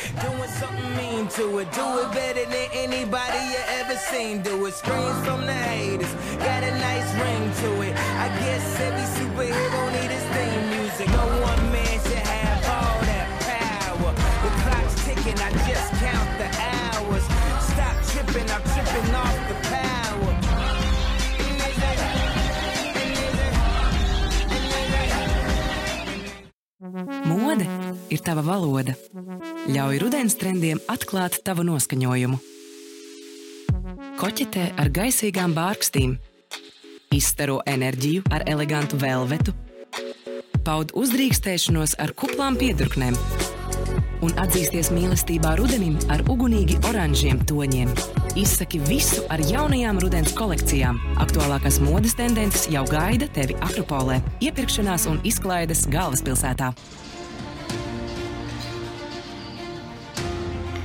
B: something mean to it, do it better than anybody you ever seen. Do it, screams from the haters, got a nice ring to it. I guess every superhero need his theme music. No one man should have all that power. The clock's ticking, I just count the hours. Stop
A: ir tava valoda. Ļauj rudens trendiem atklāt tavu noskaņojumu. Koķetē ar gaisīgām bārkstīm. Izstaro enerģiju ar elegantu velvetu. Paud uzdrīkstēšanos ar kuplām piedurknēm. Un atzīsties mīlestībā rudenim ar ugunīgi oranžiem toņiem. Izsaki visu ar jaunajām rudens kolekcijām. Aktuālākās modes tendences jau gaida tevi Akropolē. Iepirkšanās un izklaides galvaspilsētā.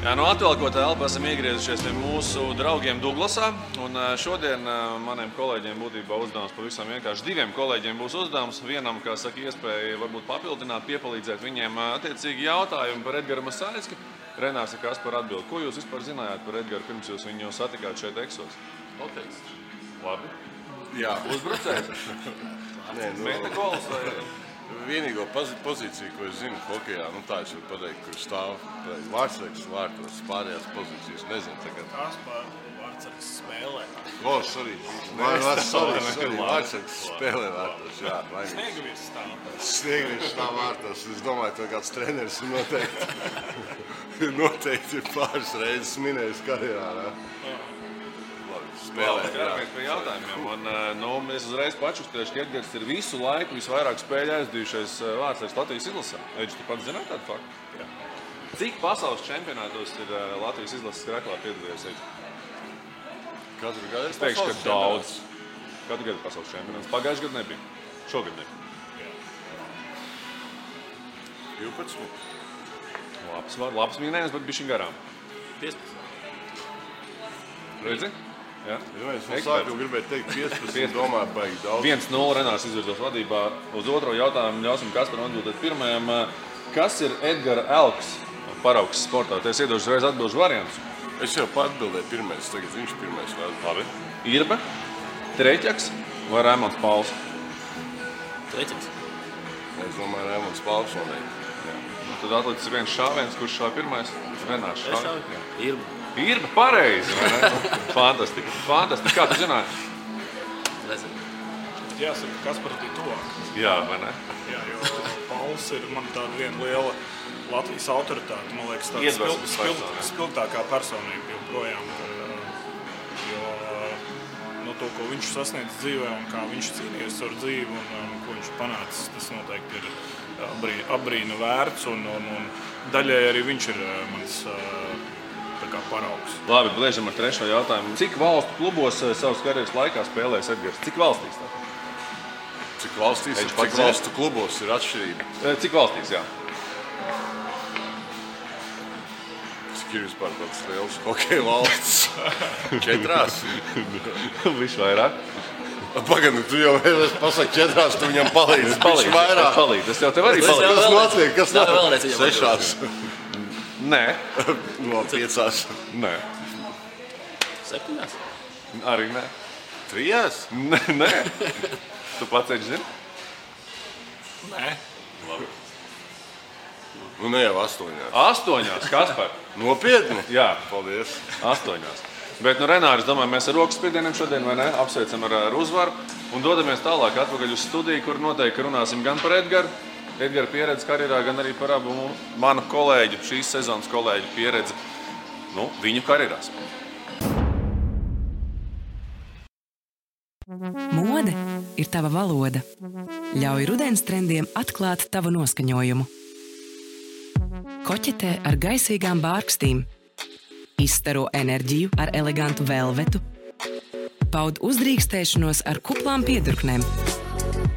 D: Jā, no atvēlkotā elpa esam iegriezušies pie mūsu draugiem Duglasā. Un šodien maniem kolēģiem būtībā uzdevums pavisam vienkārši. Diviem kolēģiem būs uzdevums. Vienam, kā saka, iespēja varbūt papildināt, piepalīdzēt viņiem attiecīgi jautājumu par Edgaru Masāļski. Renārs ir Kaspar atbild. Ko jūs vispār zinājāt par Edgaru pirms jūs viņu satikāt šeit Eksos?
E: Noteikts.
D: Labi.
F: Jā.
D: Uzbrucējs?
F: Nē,
D: Mēta gols vai...
F: Vienīgo pozīciju, ko es zinu hokejā, tā es varu pateikt, kur stāv Vārtsargs vārtos, pārējās pozīcijas nezinu tagad.
G: Kaspar Vārtsargs spēlē.
F: Sorry. Vārtsargs spēlē vārtos, jā.
G: Sniegavīrs stāv.
F: Sniegavīrs stāv vārtos. Es domāju, ka kāds treneris noteikti ir pāris reizes minējis karjerā.
D: Skaramies pie jautājumiem. Un, es uzreiz pačukstēšu, ka Edgars ir visu laiku visvairāk spēļu aizdījušais Vārtsargs Latvijas izlasē. Eģis, tu pats zināt tādu faktu? Jā. Cik pasaules čempionātos ir Latvijas izlases kraklā piedalījies, Eģis?
F: Katru gadu
D: es teikšu, ka daudz. Katru gadu pasaules čempionāts. Pagājuši gadu nebija. Šogad nebija.
F: 12.
D: Labs minējums, bet bišķiņ garām.
G: 15.
D: Redzi? Jā.
F: Es no sākuma gribēju teikt 15, domāju, baigi daudz.
D: 1-0 Renārs izvirzos vadībā. Uz otro jautājumu ļausim Kasparam atbildēt pirmajam. Kas ir Edgara Elks paraugs sportā? Te es iedošu reiz atbilžu variantus.
F: Es jau atbildēju pirmais, tagad viņš pirmais.
D: Labi. Irbe, Treķaks vai Raimonds Pauls?
G: Treķaks.
F: Es domāju, Raimonds Pauls noteikti.
D: Tad atlicis viens šāviens, kurš šāv pirmais. Renārs šāv.
G: Irba.
D: Irba, pareizi, vai ne? Fantastiski. Fantastiski. Kā tu zināji?
G: Nezinu. Jāsaka, Kaspars bija tuvāk.
D: Jā, vai ne?
G: Jā, jo Pauls ir man tāda viena liela Latvijas autoritāte. Man liekas, tāda spilgtākā personība joprojām. Jo to, ko viņš sasniedz dzīvē un kā viņš cīnījies ar dzīvi un ko viņš panācis, tas noteikti ir apbrīna vērts. Un daļai arī viņš ir mans paraugs.
D: Labi, bliežam ar trešo jautājumu. Cik valstu klubos savas karjeras laikā spēlēs Edgars? Cik valstīs tā?
F: Cik valstīs un cik valstu klubos ir atšķirība?
D: Cik valstīs, jā.
F: Cik ir vispār tāds liels hokeja valsts? 4?
D: Višķi vairāk.
F: Pagad, tu jau pasaki 4, tu viņam palīdzi.
D: Višķi vairāk. Es jau tev arī palīdzi.
F: Kas notiek? Kas notiek? 6.
D: Nē.
F: No 5.
D: Nē.
G: 7.
D: Arī nē.
F: 3?
D: Nē. Tu pats eģi zini?
G: Nē.
F: Labi. Ne jau 8.
D: 8, Kaspar.
F: Nopietni?
D: Jā.
F: Paldies.
D: 8. Bet, Renāri, es domāju, mēs ar rokas spiedieniem šodien, vai ne? Apsveicam ar uzvaru un dodamies tālāk atpakaļ uz studiju, kur noteikti runāsim gan par Edgaru, Edgara pieredzi karjerā, gan arī par abu manu kolēģu, šīs sezonas kolēģu pieredzi, viņu karjerās.
A: Mode ir tava valoda. Ļauj rudens trendiem atklāt tavu noskaņojumu. Koķetē ar gaisīgām bārkstīm. Izstaro enerģiju ar elegantu velvetu. Paud uzdrīkstēšanos ar kuplām piedurknēm.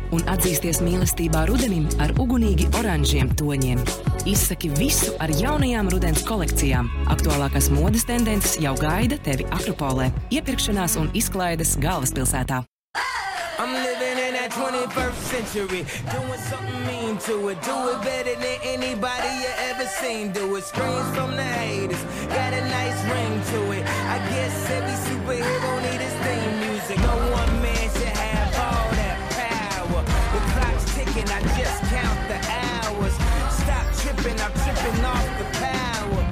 A: Un atzīsties mīlestībā rudenim ar ugunīgi oranžiem toņiem. Izsaki visu ar jaunajām rudens kolekcijām. Aktuālākās modes tendences jau gaida tevi Akropolē. Iepirkšanās un izklaides galvaspilsētā.
B: I'm living in that 21st century, doing something mean to it. Do it better than anybody you ever seen. Do it, screams from the haters, got a nice ring to it. I guess every superhero need his theme music. No one man should have all that power. The clock's ticking, I just count the hours. Stop tripping, I'm tripping off the power.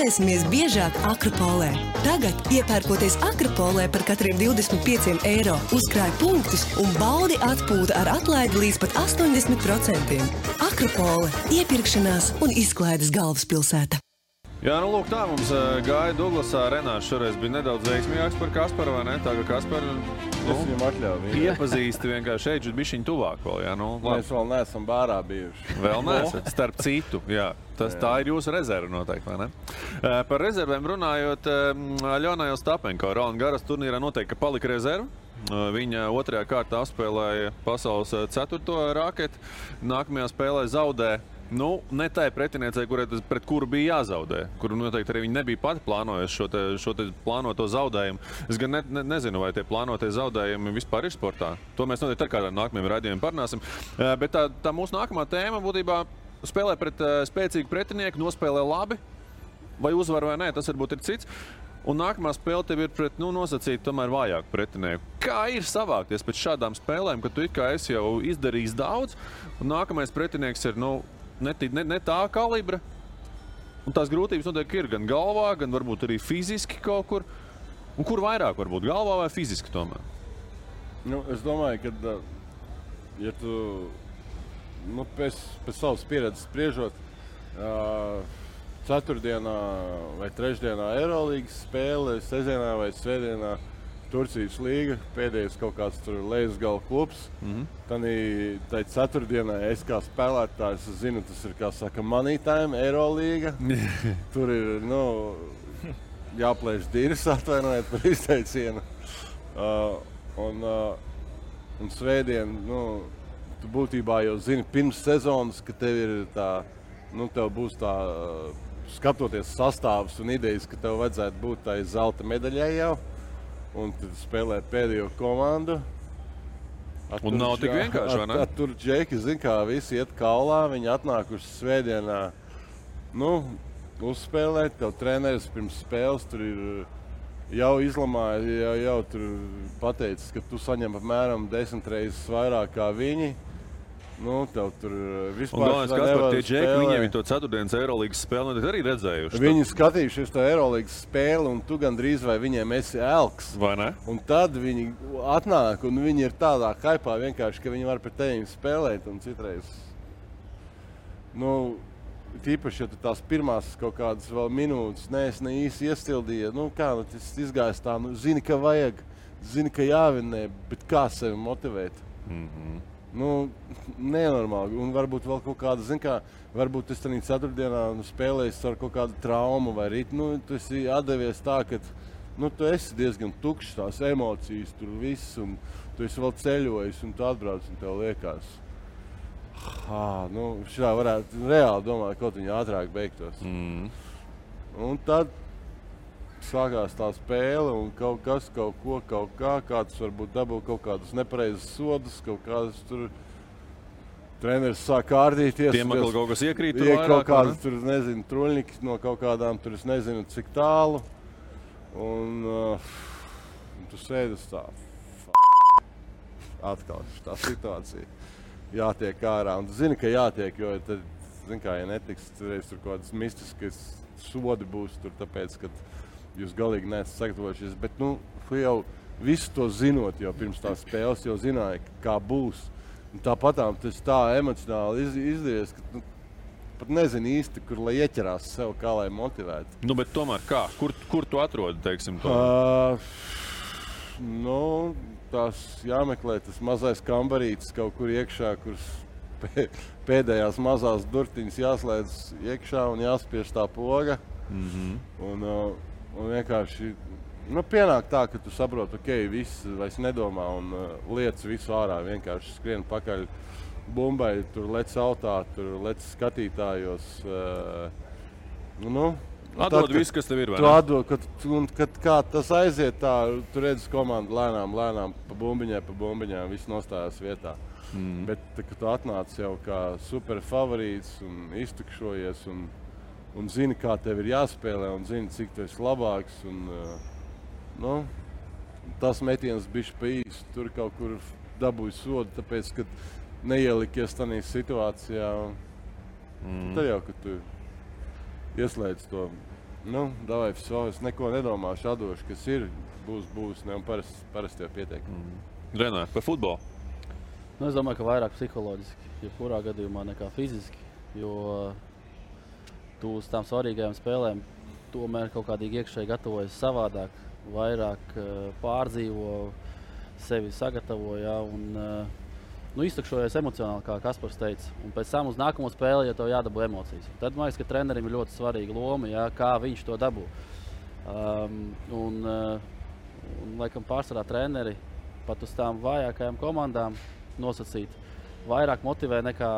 C: Spēlēsimies biežāk Akropolē. Tagad, iepērkoties Akropolē par katriem 25 eiro, uzkrāj punktus un baudi atpūta ar atlaidi līdz pat 80%. Akropole – iepirkšanās un izklaides galvaspilsēta.
D: Jā, nu lūk, tā mums gāja Duglasā. Renārs šoreiz bija nedaudz veiksmīgāks par Kasparu, vai ne? Tā kā Kasparu
F: viņam atļauju.
D: iepazīsti vienkārši šeit, bišķiņ tuvāk vēl, jā, nu.
F: Mēs vēl neesam bārā bijuši.
D: Vēl neesat, starp citu, jā. Tā ir jūsu rezerva noteikti, vai ne? Par rezervēm runājot, Aļona Ostapenko, Roland Garros turnīrā noteikti, ka palika rezerva. Viņa otrajā kārtā apspēlēja pasaules 4. raketi. Nākamajā spēlē zaudē. Nu, ne tai pretiniecei, pret kuru bija jāzaudē, kuru noteikti arī viņi nebija pati plānojuši šo te plānoto zaudējumu. Es gan nezinu, vai tie plānotie zaudējumi vispār ir sportā. To mēs noteikti ar kādām nākamajiem raidījumiem parunāsim. Bet tā mūsu nākamā tēma būtībā spēlē pret spēcīgu pretinieku, nospēlē labi, vai uzvar vai nē, tas varbūt ir cits. Un nākamā spēle tev ir pret, nosacīt tomēr vājāku pretinieku. Kā ir savākties pēc šādām spēlēm, kad tu it kā esi jau izdarījis daudz, un nākamais pretinieks ir, ne tā kalibra. Un tās grūtības noteikti ir gan galvā, gan varbūt arī fiziski kaut kur. Un kur vairāk varbūt, galvā vai fiziski tomēr?
F: Es domāju, ka, ja tu pēc savas pieredzes spriežot, ceturtdienā vai trešdienā Eirolīgas spēle, sestdienā vai svētdienā Turcijas līga, pēdējais kaut kāds tur Lejasgala klubs. Tai ceturtdienā es kā spēlētājs zinu, tas ir, kā saka, money time, Eirolīga. Tur ir, jāplēš dirs, atvainojiet par izteicienu. Un svētdien, tu būtībā jau zini pirms sezonas, ka tev ir tā, tev būs tā, skatoties sastāvs un idejas, ka tev vajadzētu būt tai zelta medaļai jau. Un tad spēlē pēdējo komandu.
D: Un nav tik vienkārši, vai ne?
F: Tur džeki, zin kā, visi iet kaulā, viņi atnākuši svētdienā, uzspēlēt, tev treneris pirms spēles tur ir jau izlamāja, jau tur pateicis, ka tu saņem apmēram 10 reizes vairāk kā viņi. Tev tur vispār
D: nevar spēlēt. Tie džeki, viņiem to ceturtdienas Eirolīgas spēli arī redzējuši.
F: Viņi skatījušies to Eirolīgas spēli, un tu gandrīz vai viņiem esi elks.
D: Vai ne?
F: Un tad viņi atnāk, un viņi ir tādā haipā vienkārši, ka viņi var pret tevim spēlēt, un citreiz. Tīpaši, ja tu tās pirmās kaut kādas vēl minūtes ne īsti iestildīja, tas izgājis tā, zini, ka vajag, zini, ka jāvinē, bet kā sevi motivēt? Nenormāli. Un varbūt vēl kaut kāda, varbūt es tādā ceturtdienā spēlējis ar kaut kādu traumu vai rīt. Tu esi atdevies tā, ka tu esi diezgan tukšs, tās emocijas tur viss, un tu esi vēl ceļojis, un tu atbrauc, un tev liekas. Šitā varētu reāli domāt, kaut viņi ātrāk beigtos. Un tad sākās tā spēle, un kaut kas, kaut kā, kāds varbūt dabū kaut kādus nepareizes sodus, kaut kādas tur treneris sāk kārdīties.
D: Tiem atkal kaut kas iekrīt tur vairāk,
F: kaut kādas tur, truļņiki no kaut kādām tur, es nezinu, cik tālu. Un tu sēdus tā, atkal tā situācija. Jātiek ārā, un tu zini, ka jātiek, jo tad, ja netiks, tur kaut kādas mistiskas sodi būs tur, tāpēc, ka jūs galīgi neesat sagatavojušies, bet jau visu to zinot jau pirms tās spēles, jau zināja, kā būs. Un tāpatām tas tā emocionāli izdevies, ka pat nezinu īsti, kur lai ieķerās sev, kā lai motivētu.
D: Bet tomēr kā? Kur tu atrodi, teiksim, to?
F: Tās jāmeklē tas mazais kambarītis kaut kur iekšā, kuras pēdējās mazās durtiņas jāslēdz iekšā un jāspiež tā poga. Un vienkārši pienāk tā, ka tu saproti, viss vairs nedomā un liec visu ārā, vienkārši skrien pakaļ bumbai, tur lec autā, tur lec skatītājos.
D: Atdod visu, kas tev ir, vai ne?
F: Tu atdod, kad kā tas aiziet tā, tu redzi komandu lēnām, pa bumbiņām, viss nostājās vietā. Bet, kad tu atnāc jau kā super favorīts un iztukšojies un zini, kā tev ir jāspēlē un zini, cik tu esi labāks. Tas metiens bišķi pa īsu, tur kaut kur dabūja sodu, tāpēc, kad neielikies tādā situācijā. Tad jau, kad tu ieslēdz to Nu, davai, es neko nedomāšu, atdošu, kas ir, būs, ne, un parasti jau pietiek.
D: Renāri, par futbolu?
H: Nu, es domāju, ka vairāk psiholoģiski, jebkurā gadījumā nekā fiziski, jo tu uz tām svarīgajām spēlēm tomēr kaut kādīgi iekšēji gatavojas savādāk, vairāk pārdzīvo, sevi sagatavo, ja, un iztukšojies emocionāli, kā Kaspars teica. Un pēc tam uz nākamo spēli, ja tev jādabū emocijas. Tad man liekas, ka trenerim ir ļoti svarīga loma, ja, kā viņš to dabū. Un laikam pārsvarā treneri pat uz tām vājākajām komandām nosacīt vairāk motivē nekā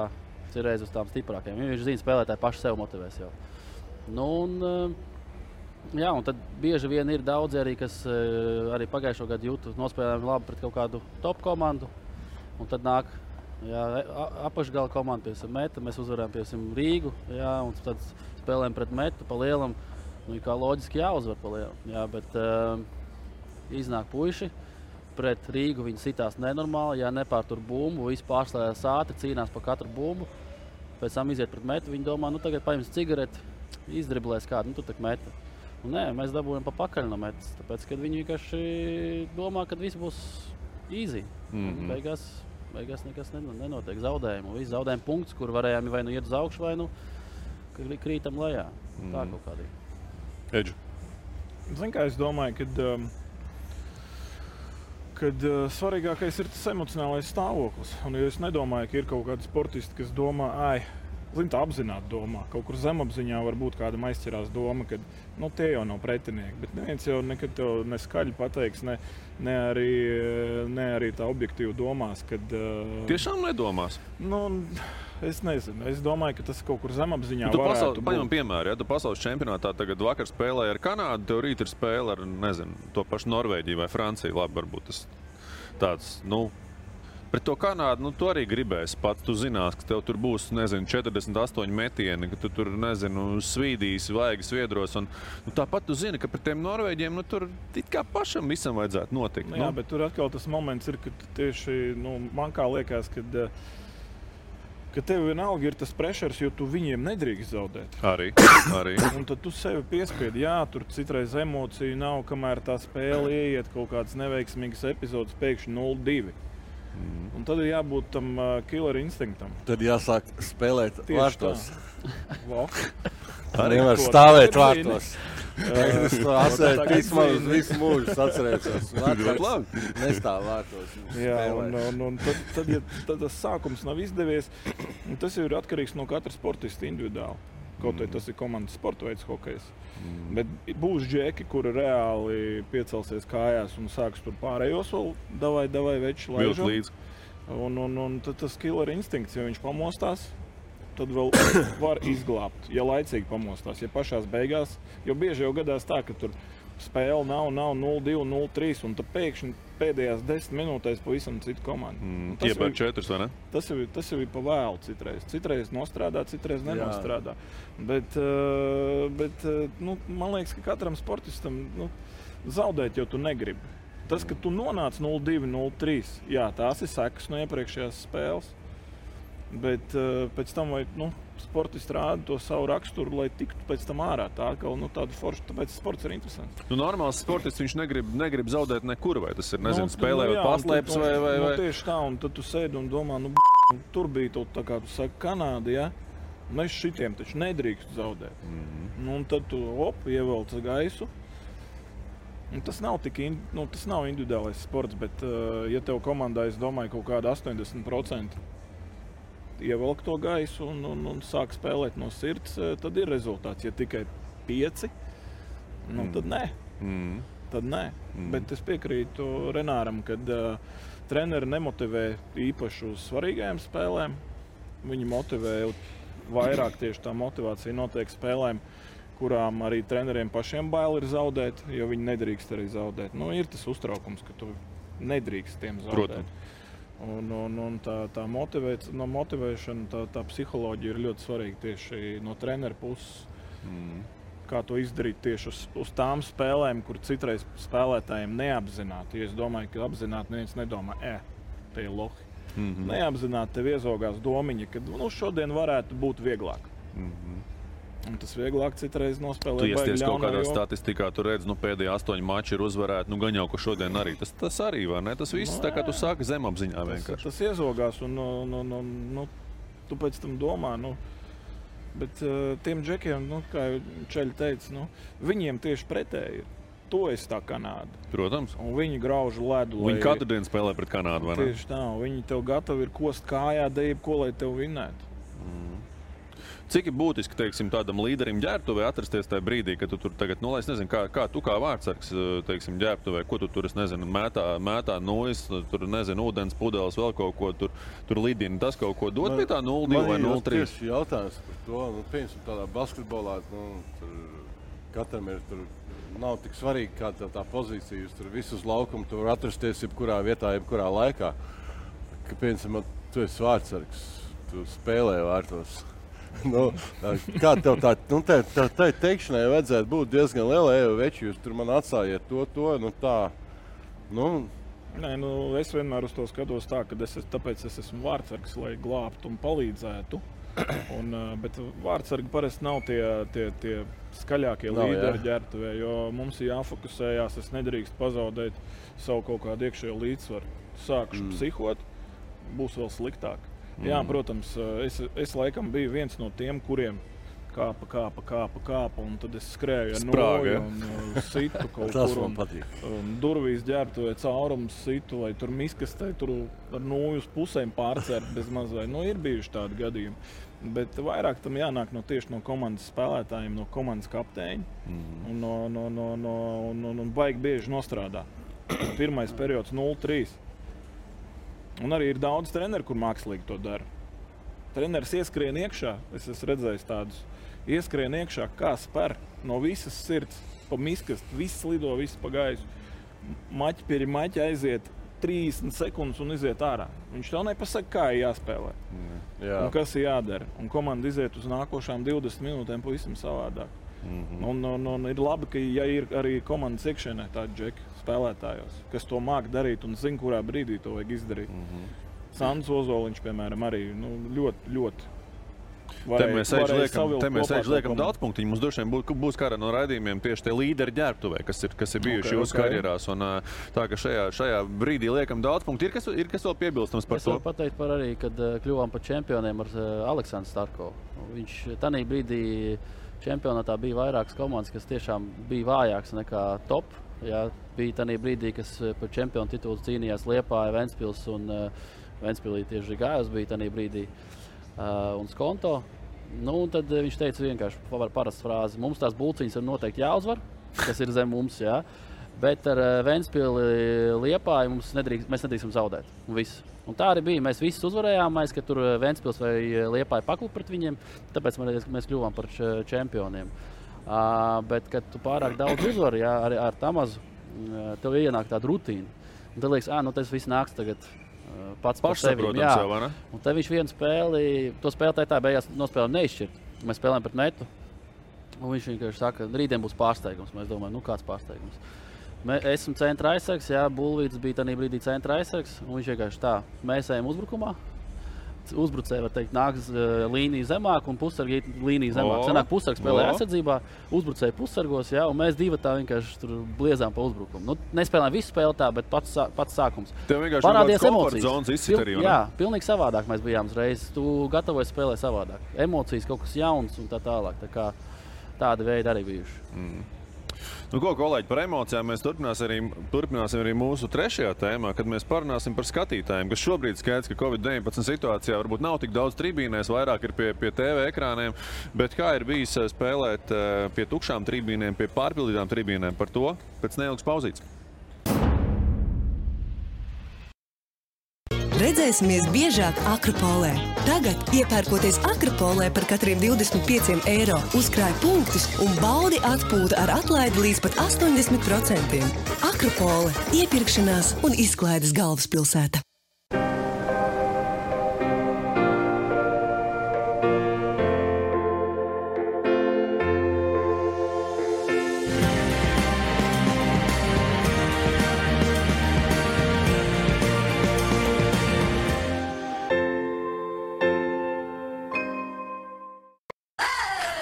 H: cirreiz uz tām stiprākajām. Viņš zina, spēlētāji paši sev motivēs jau. Nu, un tad bieži vien ir daudzi arī, kas arī pagājušo gadu jūtu nospēlējumi labi pret kaut kādu top komandu. Un tad nāk apakšgala komanda, piemēram, Meta. Mēs uzvarējām, piemēram, Rīgu, jā, un tad spēlējam pret Metu pa lielam. Nu, kā loģiski jāuzvar pa lielam, jā, bet iznāk puiši. Pret Rīgu viņi sitās nenormāli, ja nepārtur bumbu, visi pārslēdās ātri, cīnās par katru bumbu. Pēc tam iziet pret Metu, viņi domā, nu tagad paņems cigareti, izdriblēs kādu, nu tu tak Meta. Un nē, mēs dabūjam pa pakaļ no Metas, tāpēc, kad viņi vienkārši domā, ka viss būs easy. Beigās nekas nenotiek, zaudējumu. Visi zaudējumu punkts, kur varējām vai nu iet uz augšu, vai nu krītam lejā. Tā kaut kādīgi.
D: Edžu.
G: Zini, kā es domāju, kad svarīgākais ir tas emocionālais stāvoklis. Un ja es nedomāju, ka ir kaut kādi sportisti, kas domā, tā apzināti domā. Kaut kur zemapziņā var būt kāda aizķerās doma, ka tie jau nav pretinieki. Bet neviens jau nekad tev neskaļi pateiks, ne arī tā objektīvi domās.
D: Tiešām nedomās?
G: Es nezinu. Es domāju, ka tas kaut kur zemapziņā varētu būt.
D: Paņemam piemēru, ja tu pasaules čempionātā tagad vakar spēlēji ar Kanādu, tev rīt ir spēle ar, to pašu Norvēģiju vai Franciju. Labi, varbūt tas tāds, pret to Kanādu, tu arī gribēsi pats. Tu zinās, ka tev tur būs, 48 metieni, ka tu tur, svīdīsi, vaigi sviedros. Un, tāpat tu zini, ka pret tiem Norvēģiem, tur it kā pašam visam vajadzētu notikt.
G: Jā, bet tur atkal tas moments ir, ka tieši, man kā liekas, ka tev vienalga ir tas pressures, jo tu viņiem nedrīkst zaudēt.
D: Arī.
G: Un tad tu sevi piespiedi, tur citreiz emociju nav, kamēr tā spēle ieiet kaut kādas neveiksmīgas epizodes, pēkšņi 0-2. Un tad ir jābūt tam killer instinktam.
F: Tad jāsāk spēlēt vārtos.
G: Arī
F: var stāvēt vārtos. Es to atceru vismaz visu mūžu atcerēšos. Nestāv vārtos.
G: Jā, un tad tas sākums nav izdevies. Tas jau ir atkarīgs no katra sportista individuāli. Kaut vai tas ir komandas sporta veids hokejs. Bet būs džeki, kuri reāli piecelsies kājās un sāks tur pārējos vēl davai veči laižam. Un tad tas killer instinkts, ja viņš pamostās, tad vēl var izglābt, ja laicīgi pamostās. Ja pašās beigās, jo bieži jau gadās tā, ka tur spēle nav 0-2, 0-3, un tad pēkšņi pēdējās 10 minūtēs pavisam citu komandu.
D: Iepēr 4, vai ne?
G: Tas jau ir pa vēlu citreiz. Citreiz nostrādā, citreiz nenostrādā. Bet man liekas, ka katram sportistam zaudēt jau tu negribi. Tas, ka tu nonāc 0-2, 0-3, tās ir sekas no iepriekšējās spēles. Bet pēc tam sportisti rāda to savu raksturu, lai tiktu pēc tam ārā. Tā kā tāda forša, tāpēc sports ir interesants.
D: Normāls sportists viņš negrib zaudēt nekur, vai tas ir, spēlējot paslēpes vai...
G: Tieši tā, un tad tu sēdi un domā, tur bija tā kā tu saki Kanāda, ja? Mēs šitiem taču nedrīkst zaudēt. Un tad tu ievelc gaisu. Un tas nav tas nav individuālais sports, bet ja tev komandā, es domāju, kaut kāda 80% ievelk to gaisu un sāk spēlēt no sirds, tad ir rezultāts. Ja tikai 5, tad nē. Tad nē. Bet es piekrītu Renāram, kad treneri nemotivē īpaši uz svarīgajām spēlēm. Viņi motivē vairāk, tieši tā motivācija notiek spēlēm, kurām arī treneriem pašiem bail ir zaudēt, jo viņi nedrīkst arī zaudēt. Ir tas uztraukums, ka tu nedrīkst tiem zaudēt.
D: Protams.
G: Un tā motivēšana, tā psiholoģija ir ļoti svarīga tieši no trenera puses. Kā to izdarīt tieši uz tām spēlēm, kur citreiz spēlētājiem neapzināti. Ja es domāju, ka apzināti neviens nedomā, te ir lohi. Neapzināti tev iezogās domiņa, ka šodien varētu būt vieglāk. Un tas vieglāk citreiz nospēlēt.
D: Tu iesties kaut kādā statistikā, tu redz, pēdējie 8 mači ir uzvarēti, gan jau, ka šodien arī. Tas arī, vai ne? Tas viss tā kā tu sāki zemapziņā vienkārši.
G: Tas iezogās un tu pēc tam domā, bet tiem džekiem, kā Čeļi teica, viņiem tieši pretēji ir. To es tā Kanāda.
D: Protams.
G: Un viņi grauž ledu.
D: Viņi katru dienu spēlē pret Kanādu, vai ne?
G: Tieši tā, viņi tev gatavi ir kost kājā, ko lai tev vinnētu.
D: Cik ir būtiski, teiksim, tādam līderim ģērbtuvē atrasties tajā brīdī, kad tu tur tagad, es nezinu, kā tu kā vārdsargs, teiksim, ģērbtuvē, ko tu tur, es nezinu, mētā nojas, tur, nezinu, ūdens pudeles, vēl kaut ko tur lidina, tas kaut ko dod pie tā 0-2 vai 0-3?
F: Man tieši jautājums par to, piemēram, tādā basketbolā, tur katram ir tur, nav tik svarīgi, kāda tā pozīcija, tur visu uz laukumu, tu var atrasties jebkurā vietā, jebkurā laikā. Ka, piemēram, tu esi vārdsargs, tu spēlē vārtos. Kā tev tā teikšanai vajadzētu būt diezgan liela, veči, jūs tur man atstājiet to, tā.
G: Nē, es vienmēr uz to skatos tā, ka tāpēc es esmu vārdsargs, lai glābtu un palīdzētu. Bet vārdsargi parasti nav tie skaļākie līderi ģērbtuvē, jo mums ir jāfokusējās, es nedrīkst pazaudēt savu kaut kādu iekšējo līdzsvaru. Sākšu psihot, būs vēl sliktāk. Jā, protams, es laikam biju viens no tiem, kuriem kāpa, un tad es skrēju ar noju un situ kaut kur. Un durvīs ģērbtuvē caurums situ, vai tur miskastē, tur ar noju uz pusēm pārcērt bez mazai. Ir bijuši tādi gadījumi. Bet vairāk tam jānāk tieši no komandas spēlētājiem, no komandas kapteiņa. Un baigi bieži nostrādā. Pirmais periods 0-3. Un arī ir daudz treneri, kur mākslīgi to dara. Treneris ieskrien iekšā, es esmu redzējis tādus, ieskrien iekšā, kā spēr no visas sirds, pa miskastu, viss lido, viss pa gaisu. Maķi pie maķa aiziet 30 sekundes un iziet ārā. Viņš tev nepasaka, kā ir jāspēlē. Un kas ir jādara. Un komanda iziet uz nākošām 20 minūtēm pavisam savādāk. Un ir labi, ka ir arī komandas iekšēnē tādi džeki spēlētājos, kas to māk darīt un zina, kurā brīdī to vajag izdarīt. Sandrs Ozoliņš, piemēram, arī ļoti
D: Te mēs liekam daudz punktiņu. Mums droši vien būs kādā no raidījumiem tieši tie līderi ģērbtuvē, kas ir bijuši jūsu karjerās. Un tā, ka šajā brīdī liekam daudz punktu. Ir kas vēl piebilstams par to?
H: Es varu pateikt par arī, kad kļuvām par čempioniem ar Aleksandru Starkovu. Viņš tanī brīdī čempionātā bija vairākas komandas, kas tiešām bija vājāks nekā top. Jā, bija tanī brīdī, kas par čempionu titulu cīnījās Liepāja, Ventspils un Ventspilī tieši Gājus bija tanī brīdī un Skonto. Un tad viņš teica vienkārši parastu frāzi. Mums tās bulciņas ir noteikti jāuzvar, kas ir zem mums, jā. Bet ar Ventspili Liepāju mēs nedrīkstam zaudēt. Un tā arī bija. Mēs visus uzvarējām, ka tur Ventspils vai Liepāja paklupa pret viņiem, tāpēc mēs kļuvām par čempioniem. Bet, kad tu pārāk daudz uzvari, ar Tamazu, tev ienāk tāda rutīna. Un tad liekas, tas viss nāks tagad pats par sevi. Un te viņš vienu spēli, to spēlētāju tā beigās nospēlēm neizšķirt. Mēs spēlējam pret Netu. Un viņš vienkārši saka, rītdien būs pārsteigums. Mēs domājam, kāds pārsteigums. Esmu centra aizsargs, Bulvīts bija tajā brīdī centra aizsargs. Un viņš vienkārši tā, mēs ejam uzbrukumā. Uzbrucēji, var teikt, nāks līnija zemāk un pussargi līnija zemāk. Sanāk pussargs spēlē aizsardzībā, uzbrucēji pussargos, un mēs divi tā vienkārši tur bliezām pa uzbrukumu. Nespēlējām visu spēli tā, bet pats sākums.
D: Tev vienkārši parādījās emocijas.
H: Jā, pilnīgi savādāk mēs bijām uzreiz. Tu gatavojies spēlēt savādāk. Emocijas, kaut kas jauns un tā tālāk. Tā kā tādi veidi arī bijuši.
D: Ko, kolēģi, par emocijām mēs turpināsim arī mūsu trešajā tēmā, kad mēs parunāsim par skatītājiem, kas šobrīd skaidrs, ka Covid-19 situācijā varbūt nav tik daudz tribīnēs, vairāk ir pie TV ekrāniem, bet kā ir bijis spēlēt pie tukšām tribīnēm, pie pārpildītām tribīnēm, par to pēc neilgas pauzītes.
C: Redzēsimies biežāk Akropolē. Tagad, iepērkoties Akropolē par katriem 25 eiro, uzkrāj punktus un baudi atpūtu ar atlaidi līdz pat 80%. Akropole – iepirkšanās un izklaides galvaspilsēta.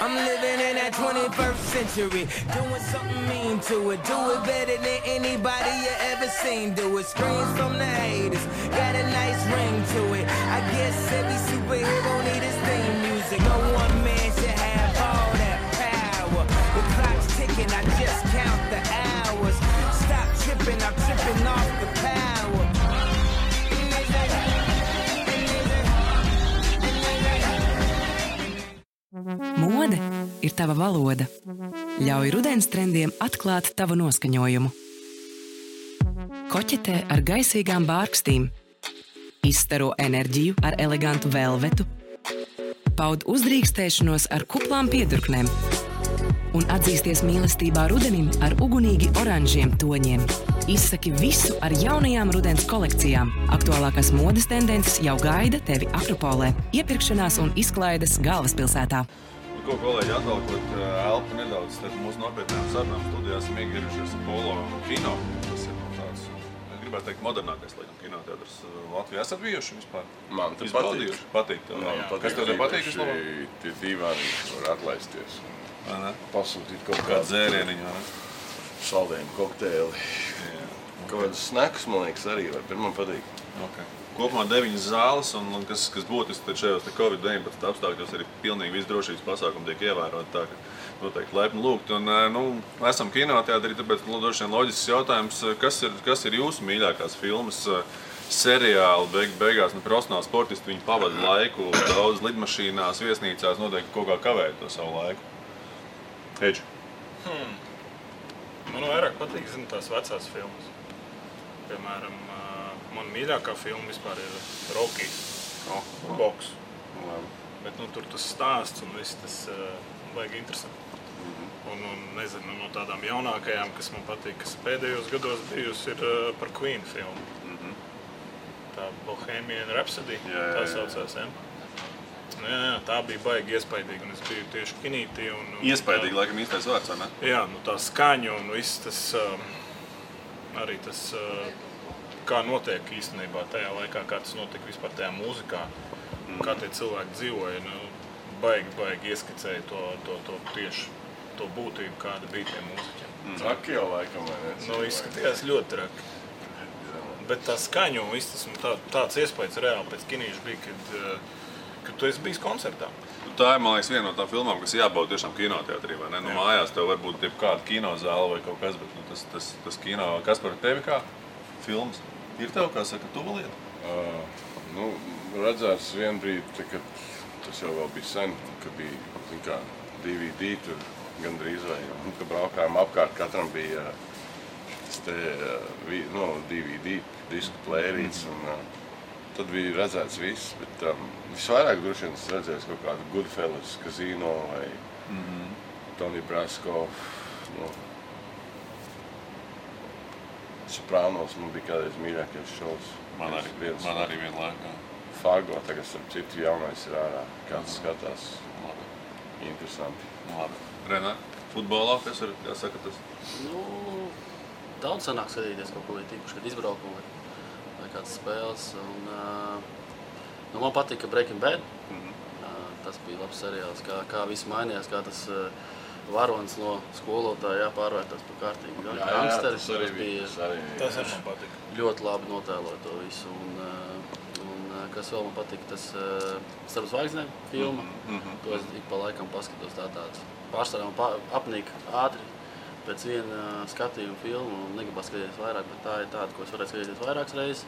B: I'm living that 21st century. Doing something mean to it. Do it better than anybody you ever seen. Do it. Screams from the haters. Got a nice ring to it. I guess every superhero need his theme music. No one man should have all that power. The clock's ticking, I just count the hours. Stop tripping, I'm tripping off the power.
A: Mode ir tava valoda. Ļauj rudens trendiem atklāt tavu noskaņojumu. Koķetē ar gaisīgām bārkstīm. Izstaro enerģiju ar elegantu velvetu. Paud uzdrīkstēšanos ar kuplām piedurknēm. Un atzīsties mīlestībā rudenim ar ugunīgi oranžiem toņiem. Izsaki visu ar jaunajām rudens kolekcijām. Aktuālākās modes tendences jau gaida tevi Akropolē, iepirkšanās un izklaides galvaspilsētā.
E: Ko, kolēģi, atvalkot elpu nedaudz starp mūsu nopietnām sarunām studijā esam iegriežušies polo kino. Tas ir tāds, gribētu teikt, modernākais, laikam, kinoteatrs Latvijā. Esat bijuši vispār?
F: Man te
E: Patīk. Kas tev te patīk vislabāk?
F: Tie dīvāni var atlaisties. Pasūtīt kaut
E: kādu dzērieniņu, vai ne?
F: Saldējumu kokteili. Kaut kādas snacks, man liekas, arī var. Man patīk.
E: Okay. Kopumā 9 zāles, un kas būtiski šajos Covid-19 apstākļos arī pilnīgi viss drošības pasākumi tiek ievērot, tā ka noteikti laipni lūgt. Un, esam kinoteātrī, tāpēc droši vien loģisks jautājums, kas ir jūsu mīļākās filmas, seriāli, beigās, profesionāli sportisti, viņi pavada laiku daudz lidmašīnās, viesnīcās, noteikti kaut kā kavēt to savu laiku. Eģi.
G: Man vairāk patīk, tās vecās filmas. Piemēram, man mīļākā filma vispār ir Rocky, boks. Bet tur tas stāsts un viss tas baigi interesanti. Un nezinu, no tādām jaunākajām, kas man patīk, kas pēdējos gados bijusi, ir par Queen filmu. Tā Bohemian Rhapsody, tā saucās, ja? Jā, tā bija baigi iespaidīga, un es biju tieši kinītī.
E: Iespaidīgi, laikam, īstais vārds, vai ne?
G: Jā, tā skaņa un viss tas, arī tas, kā notiek īstenībā tajā laikā, kā tas notika vispār tajā mūzikā, kā tie cilvēki dzīvoja, baigi ieskicēja to tieši to būtību, kāda bija tie mūziķiem.
F: Traki jau laikam, vai ne?
G: Izskatījās ļoti traki. Bet tā skaņa un viss tas, tāds iespējas reāli pēc kinīša bija, kad tu esi bijis koncertā.
E: Tā ir, man liekas, viena no tām filmām, kas jābauda tiešām kinoteātrī, vai ne? Mājās tev varbūt kāda kinozāle vai kaut kas, bet tas kino, kas par tevi kā filmas? Ir tev, kā saka, tuva lieta?
F: Redzēts vien brīdi, kad tas jau vēl bija sen, kad bija, DVD tur gandrīz vai, kad braukājām apkārt, katram bija DVD, disku plērīts, un tad bija redzēts viss, bet visvairāk droši vien es redzēju kaut kādu Goodfellas, Casino vai Tony Brasco. Soprānos man bija kādreiz mīļākais šovs.
E: Man arī vienlaikā.
F: Fargo, tagad starp citu jaunais ir ārā. Kāds skatās. Interesanti.
E: Labi. Renā, futbolā, kas ir, jāsaka tas?
H: Daudz sanāk skatīties kaut ko tīpaši, kad izbraukumu vai kādas spēles. Man patika Breaking Bad. Tas bija labs seriāls, kā viss mainījās, kā tas varonis no skolotāja pārvērtās par kārtīgu gangsteris.
G: Tas arī man patika.
H: Ļoti labi notēloja to visu. Un kas vēl man patika, tas Starp zvaigznēm filma. To es ik pa laikam paskatos tāds. Pārsvarā man apnīk ātri pēc viena skatījuma filmu un negribas skatīties vairāk, bet tā ir tāda, ko es varētu skatīties vairākas reizes.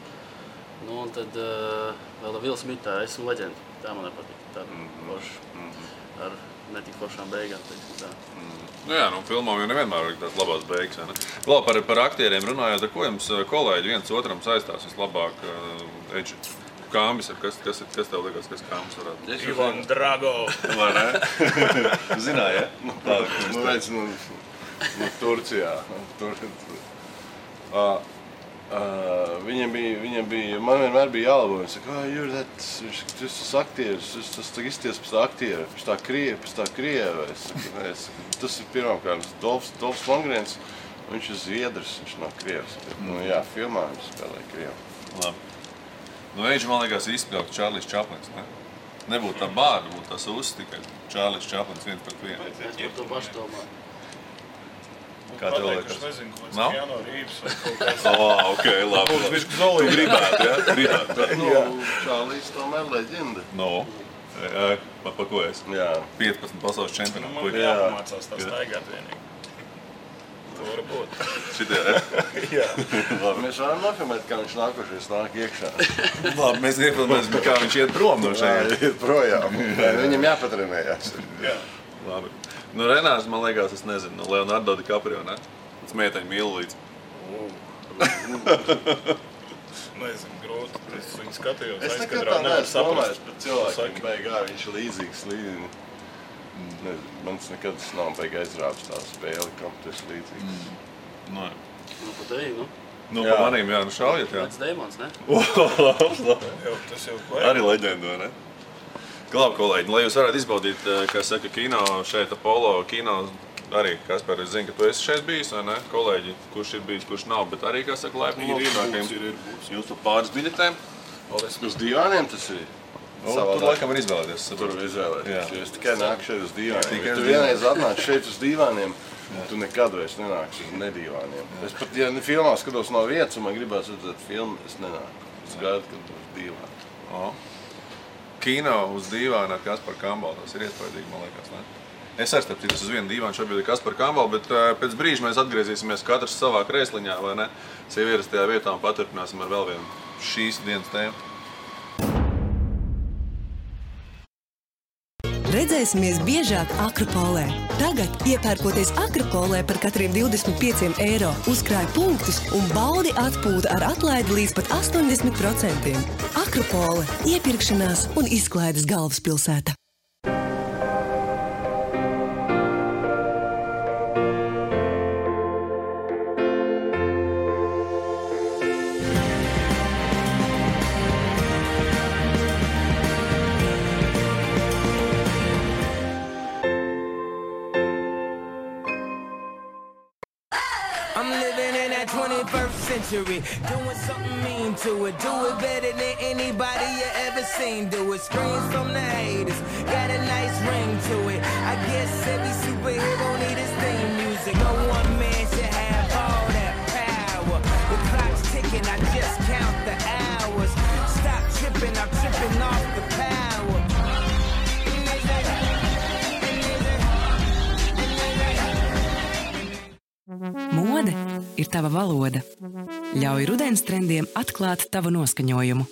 H: Un tad vēl Will Smithā, esmu leģenda. Tā man nepatīk. Tāda forša ar netik foršām beigām, teiksim tā.
E: Filmām jau nevienmēr ir tās labās beigas, vai ne? Vēl par aktieriem runājot, ar ko jums kolēģi viens otram saistās vislabāk? Eģi, Kāmbis, kas tev liekas, kas Kāmbis varētu būt?
G: Ivan Drago.
E: Vai ne? Zināji, ja?
F: Turcijā. Viņam bija, man vienmēr bija jālabo, viņš saka, tu esi aktieris, tas izties pēc tā aktiera, pēc tā krieva. Tas ir pirmkārt Dolfs Lundgrens, viņš ir Zviedrs, viņš nav krievs. Filmā viņš spēlē krievu.
E: Labi. Eģi, man liekas, izspēlēt Čārlis Čaplins, ne? Nebūtu tā bāda, būtu tas uztikai. Čārlis Čaplins 1-1.
H: Es par to pašu domāju.
E: Kā tev liekas?
G: Es nezinu, ko
E: Nav?
G: Keanu Reeves vai kaut kāds.
E: Ok, labi.
G: Viņš zolīgi.
E: Tu gribētu, ja? Gribētu.
F: Čārlis tomēr leģenda.
E: No. Pa ko es?
F: Jā.
E: 15 pasaules čempionāti.
G: Man jāpamācās tā staigāt vienīgi. To var būt.
E: Šitie, ja?
G: Jā.
F: Mēs varam nofilmēt, kā viņš nākošais nāk iekšā.
E: Labi, mēs iefilmēsim, kā viņš iet prom no šeit.
F: Iet projām. Viņam jāpatrenējās.
G: Jā.
E: Labi. Nu, Renārs, man liekas, es nezinu, Leonardo DiCaprio, ne? Tas meiteņu mīlu līdz.
G: Nezinu, grūti. Es viņu skatījos.
F: Es nekad
G: aizkadrā,
F: tā
G: nevaru
F: neesmu domājis
G: saprast.
F: par cilvēkiem
G: Saki.
F: beigā, viņš ir līdzīgs līdzi. Mans nekad nav beigā aizrāvis tā spēle, kam tu esi līdzīgs.
E: Nu,
H: Nu, pa tevi, nu.
E: nu
F: Jā.
E: pa manīm, jā, nu šaujiet, jā.
H: Pēc Deimons, ne?
G: Tas jau
E: Arī leģenda, vai ne? Labi, kolēģi, lai jūs varētu izbaudīt, kā saka, kino šeit, Apollo kino, arī, Kaspar, es zinu, ka tu esi šeit bijis, vai ne? Kolēģi, kurš ir bijis, kurš nav, bet arī, kā saka, laipni jūs tur pāris biļetēm.
F: Uz divāniem tas ir?
E: Tur laikam var izvēlēties.
F: Tur var izvēlēties.
E: Jā.
F: Jo es tikai nāku šeit uz divāniem.
E: Tikai
F: Ja
E: uz
F: tu vienreiz atnāc šeit uz divāniem, tu nekad vairs nenāksi uz nedivāniem. Es pat, ja filmā skatos no vietas, un man gribās redzēt filmu, es nenāku. Es gaidu, kad uz divāni.
E: Kino uz dīvāna ar Kasparu Kambalu, tas ir iespaidīgi, man liekas, ne? Es arī starp citu uz vienu dīvānu šobrīd ir Kasparu Kambalu, bet pēc brīža mēs atgriezīsimies katrs savā krēsliņā, vai ne? Sev ierastajā vietā un paturpināsim ar vēl vienu šīs dienas tēmu.
C: Redzēsimies biežāk Akropolē. Tagad, iepērkoties Akropolē par katriem 25 eiro, uzkrāj punktus un baudi atpūtu ar atlaidi līdz pat 80%. Akropole – iepirkšanās un izklaides galvaspilsēta.
B: I'm living in that 21st century, doing something mean to it. Do it better than anybody you ever seen. Do it, screams from the haters, got a nice ring to it. I guess every superhero need his theme music. No one man should have all that power. The clock's ticking, I just count the hours. Stop tripping, I'm tripping off the power.
A: Mode ir tava valoda. Ļauj rudens trendiem atklāt tavu noskaņojumu.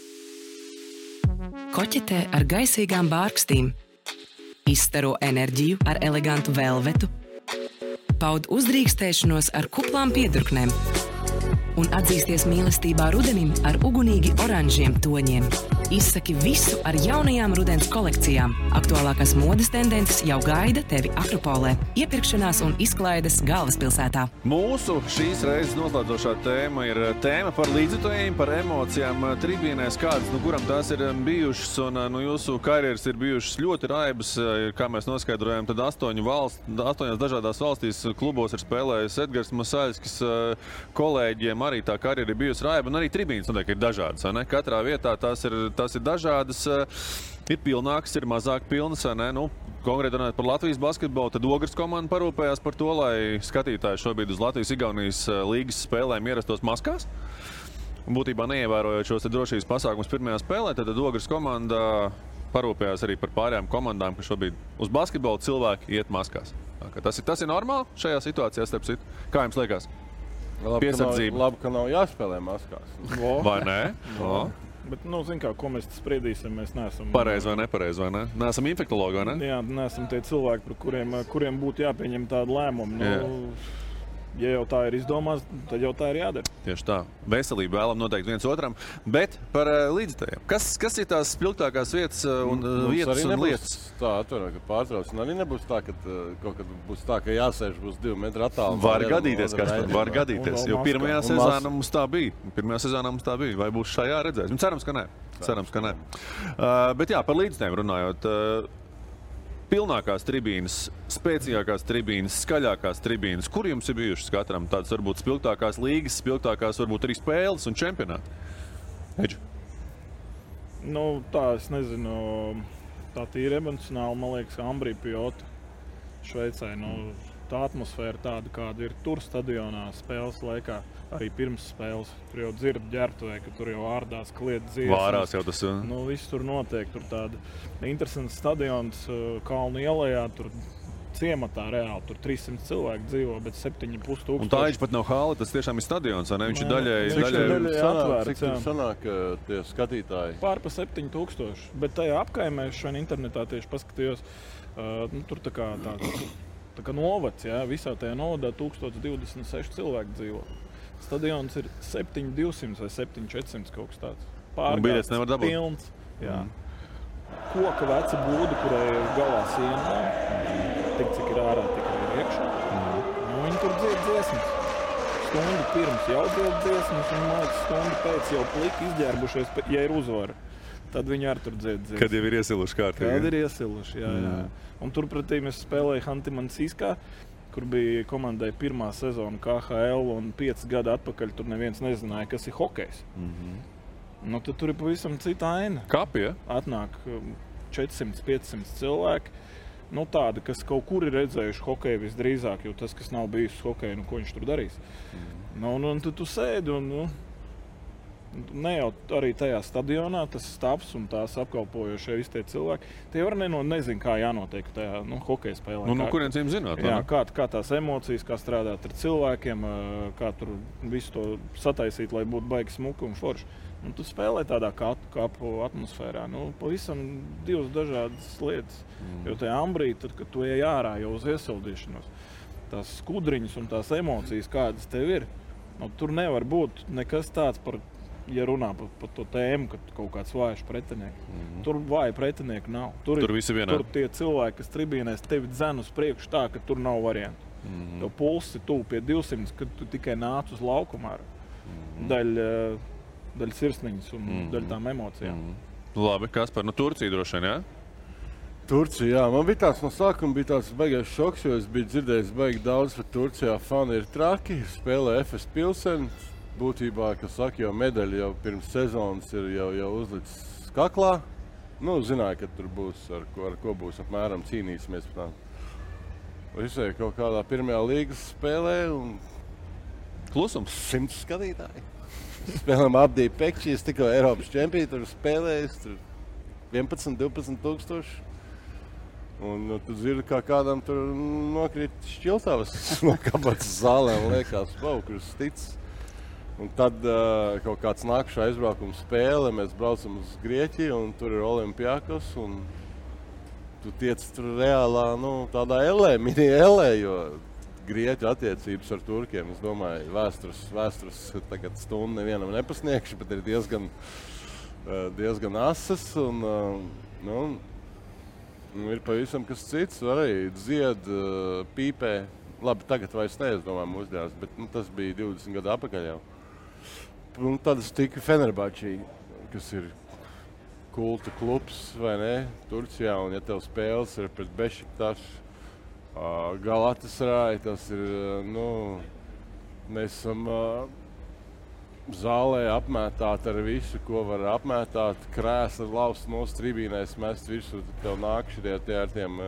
A: Koķetē ar gaisīgām bārkstīm. Izstaro enerģiju ar elegantu velvetu. Paud uzdrīkstēšanos ar kuplām piedurknēm. Un atzīsties mīlestībā rudenim ar ugunīgi oranžiem toņiem. Izsaki visu ar jaunajām rudens kolekcijām. Aktuālākās modes tendences jau gaida tevi Akropolē. Iepirkšanās un izklaides galvaspilsētā.
D: Mūsu šīs reizes noslēdzošā tēma ir tēma par līdzjutējiem, par emocijām tribīnēs, kādas, kuram tās ir bijušas, un jūsu karjeras ir bijušas ļoti raibas, kā mēs noskaidrojam, tad 8 dažādās valstīs klubos ir spēlējis Edgars Masaļskis, kolēģiem arī tā karjera ir bijusi raiba, un arī tribīnes noteikti ir dažādas, vai ne? Katrā vietā tās ir dažādas, ir pilnākas, ir mazāk pilnas, vai ne? Nu, konkrēti runājot par Latvijas basketbolu, tad Ogres komanda parūpējās par to, lai skatītāji šobrīd uz Latvijas-Igaunijas līgas spēlēm ierastos maskās. Būtībā neievērojot šos drošības pasākumus pirmajā spēlē, tad Ogres komanda parūpējās arī par pārējām komandām, ka šobrīd uz basketbolu cilvēki iet maskās. Tas ir normāli šajā situācijā, starp citu. Kā jums liekas? Piesardzība.
F: Labi, ka nav jāspēlē maskās.
D: Vai nē?
G: Bet, zin kā, ko mēs spriedīsim, mēs neesam...
D: Pareizi vai nepareizi, vai ne? Neesam infektologi, vai ne?
G: Jā, neesam tie cilvēki, par kuriem būtu jāpieņem tādu lēmumu. Ja jau tā ir izdomāts, tad jau tā ir jādara.
D: Tieši tā. Veselību vēlam noteikti viens otram. Bet par līdzjutējiem. Kas ir tās spilgtākās vietas un lietas?
F: Tā atvaino, ka pārtrauc. Un arī nebūs tā, ka kaut kad būs tā, ka jāsēž būs 2 metru attālumā.
D: Var gadīties, Kaspar, var gadīties. Jo pirmajā sezonā mums tā bija. Vai būs šajā redzēs? Cerams, ka nē. Bet jā, par līdzjutējiem runājot. Pilnākās tribīnes, spēcīgākās tribīnes, skaļākās tribīnes. Kur jums ir bijušas katram tādas varbūt spilgtākās līgas, spilgtākās varbūt arī spēles un čempionāti? Edži?
G: Tā, es nezinu. tā tīri emocionāli, man liekas, Ambrī Pjota Šveicē. Tā atmosfēra tāda, kāda ir tur stadionā spēles laikā, arī pirms spēles. Tur jau dzird ģērbtuvē, ka tur jau ārdās, kliedz dziesmas.
D: Vārās jau tas.
G: Viss tur notiek. Tur tāda interesanta stadions Kalnu ielējā, tur ciematā reāli. Tur 300 cilvēku dzīvo, bet 7,5 tūkstoši.
D: Un tā viņš pat nav hāla, tas tiešām ir stadions, vai ne? Viņš ir daļēji
G: atvērts.
F: Cik tur sanāk tie skatītāji?
G: Pār pa 7,000. Bet tajā apkaimē šodien internetā tieši paskatījos, tur tā kā novads, jā, visā tajā novadā 1026 cilvēku dzīvo. Stadions ir 7,200 vai 7,400 kaut kas tāds.
D: Biļetes nevar dabūt.
G: Pilns, jā. Koka veca būda, kurai ir galā siena, tik cik ir ārā, tik ir iekšā. Viņi tur dzied dziesmas. Stundu pirms jau dzied dziesmas, un māc stundu pēc jau pliki izģērbušies, ja ir uzvara. Tad viņi arī tur dzied dziesmas.
D: Kad jau ir iesiluši kārtīgi.
G: Kad ir iesiluši, jā. Un turpretī mēs spēlēju Hanti-Mansijskā, kur bija komandai pirmā sezona KHL, un 5 gadu atpakaļ tur neviens nezināja, kas ir hokejs. Tad tur ir pavisam cita aina.
D: Kapi, ja?
G: Atnāk 400-500 cilvēki. Tādi, kas kaut kur ir redzējuši hokeju visdrīzāk, jo tas, kas nav bijis hokeju, ko viņš tur darīs. Un tad tu sēdi un ne jau arī tajā stadionā, tas stāvs un tās apkalpojošie visi tie cilvēki. Tie var nezinu, kā jānotiek tajā hokeja spēlē.
D: No kurienes viņiem zināt?
G: Jā, kā tās emocijas, kā strādāt ar cilvēkiem, kā tur visu to sataisīt, lai būtu baigi smuki un forši. Tu spēlē tādā kapu atmosfērā. Pavisam divas dažādas lietas. Jo tajā Ambrī, tad, kad tu ej ārā jau uz iesildīšanos, tās skudriņas un tās emocijas, kādas tev ir, tur nevar būt nekas tāds par, ja runā par to tēmu, ka kaut kāds vājš pretinieks. Tur vāja pretinieki nav. Tur
D: visi vienā.
G: Tur tie cilvēki, kas tribīnēs tevi dzen uz priekšu tā, ka tur nav variantu. Tev pulsi tuvu pie 200, kad tu tikai nāc uz laukumā. Daļa sirsniņas un daļa tām emocijām.
D: Labi, Kaspar, Turcija droši vien, jā?
F: Turcija, jā. Man bija tāds no sākuma tāds baigais šoks, jo es biju dzirdējis baigi daudz, ka Turcijā fani ir traki, spēlē FS Pilseni. Būtībā, kas saka, jau medaļa jau pirms sezonas ir jau uzlicis kaklā. Zināja, ka tur būs, ar ko būs apmēram cīnīsimies. Visai kaut kādā pirmajā līgas spēlē un
D: klusums
F: 100 skatītāji. Spēlēm Abdī Pekčī, es tikko Eiropas čempiju tur spēlējis, tur 11-12 tūkstoši. Un tu dzirdi, kā kādam tur nokrīt šķiltavas no kabatas zālēm, liekas, kurus tic. Un tad kaut kāds nākušā aizbraukuma spēle, mēs braucam uz Grieķiju un tur ir Olimpiakos un tu tiec tur reālā, tādā mini elē, jo Grieķu attiecības ar turkiem, es domāju, vēstures tagad stundu nevienam nepasniegšu, bet ir diezgan asas un ir pavisam kas cits, arī dzied, pīpē. Labi, tagad vairs ne, es domāju, mūsdienās, bet tas bija 20 gadu atpakaļ jau. Un tad es tiku Fenerbahčī, kas ir kulta klubs, vai ne, Turcijā, un ja tev spēles ir pret Bešiktašu, Galatasaray, tas ir, mēs esam zālē apmētāti ar visu, ko var apmētāt, krēsli lauzt no tribīnēs, mest virsū, tev nāk šitie ar tiem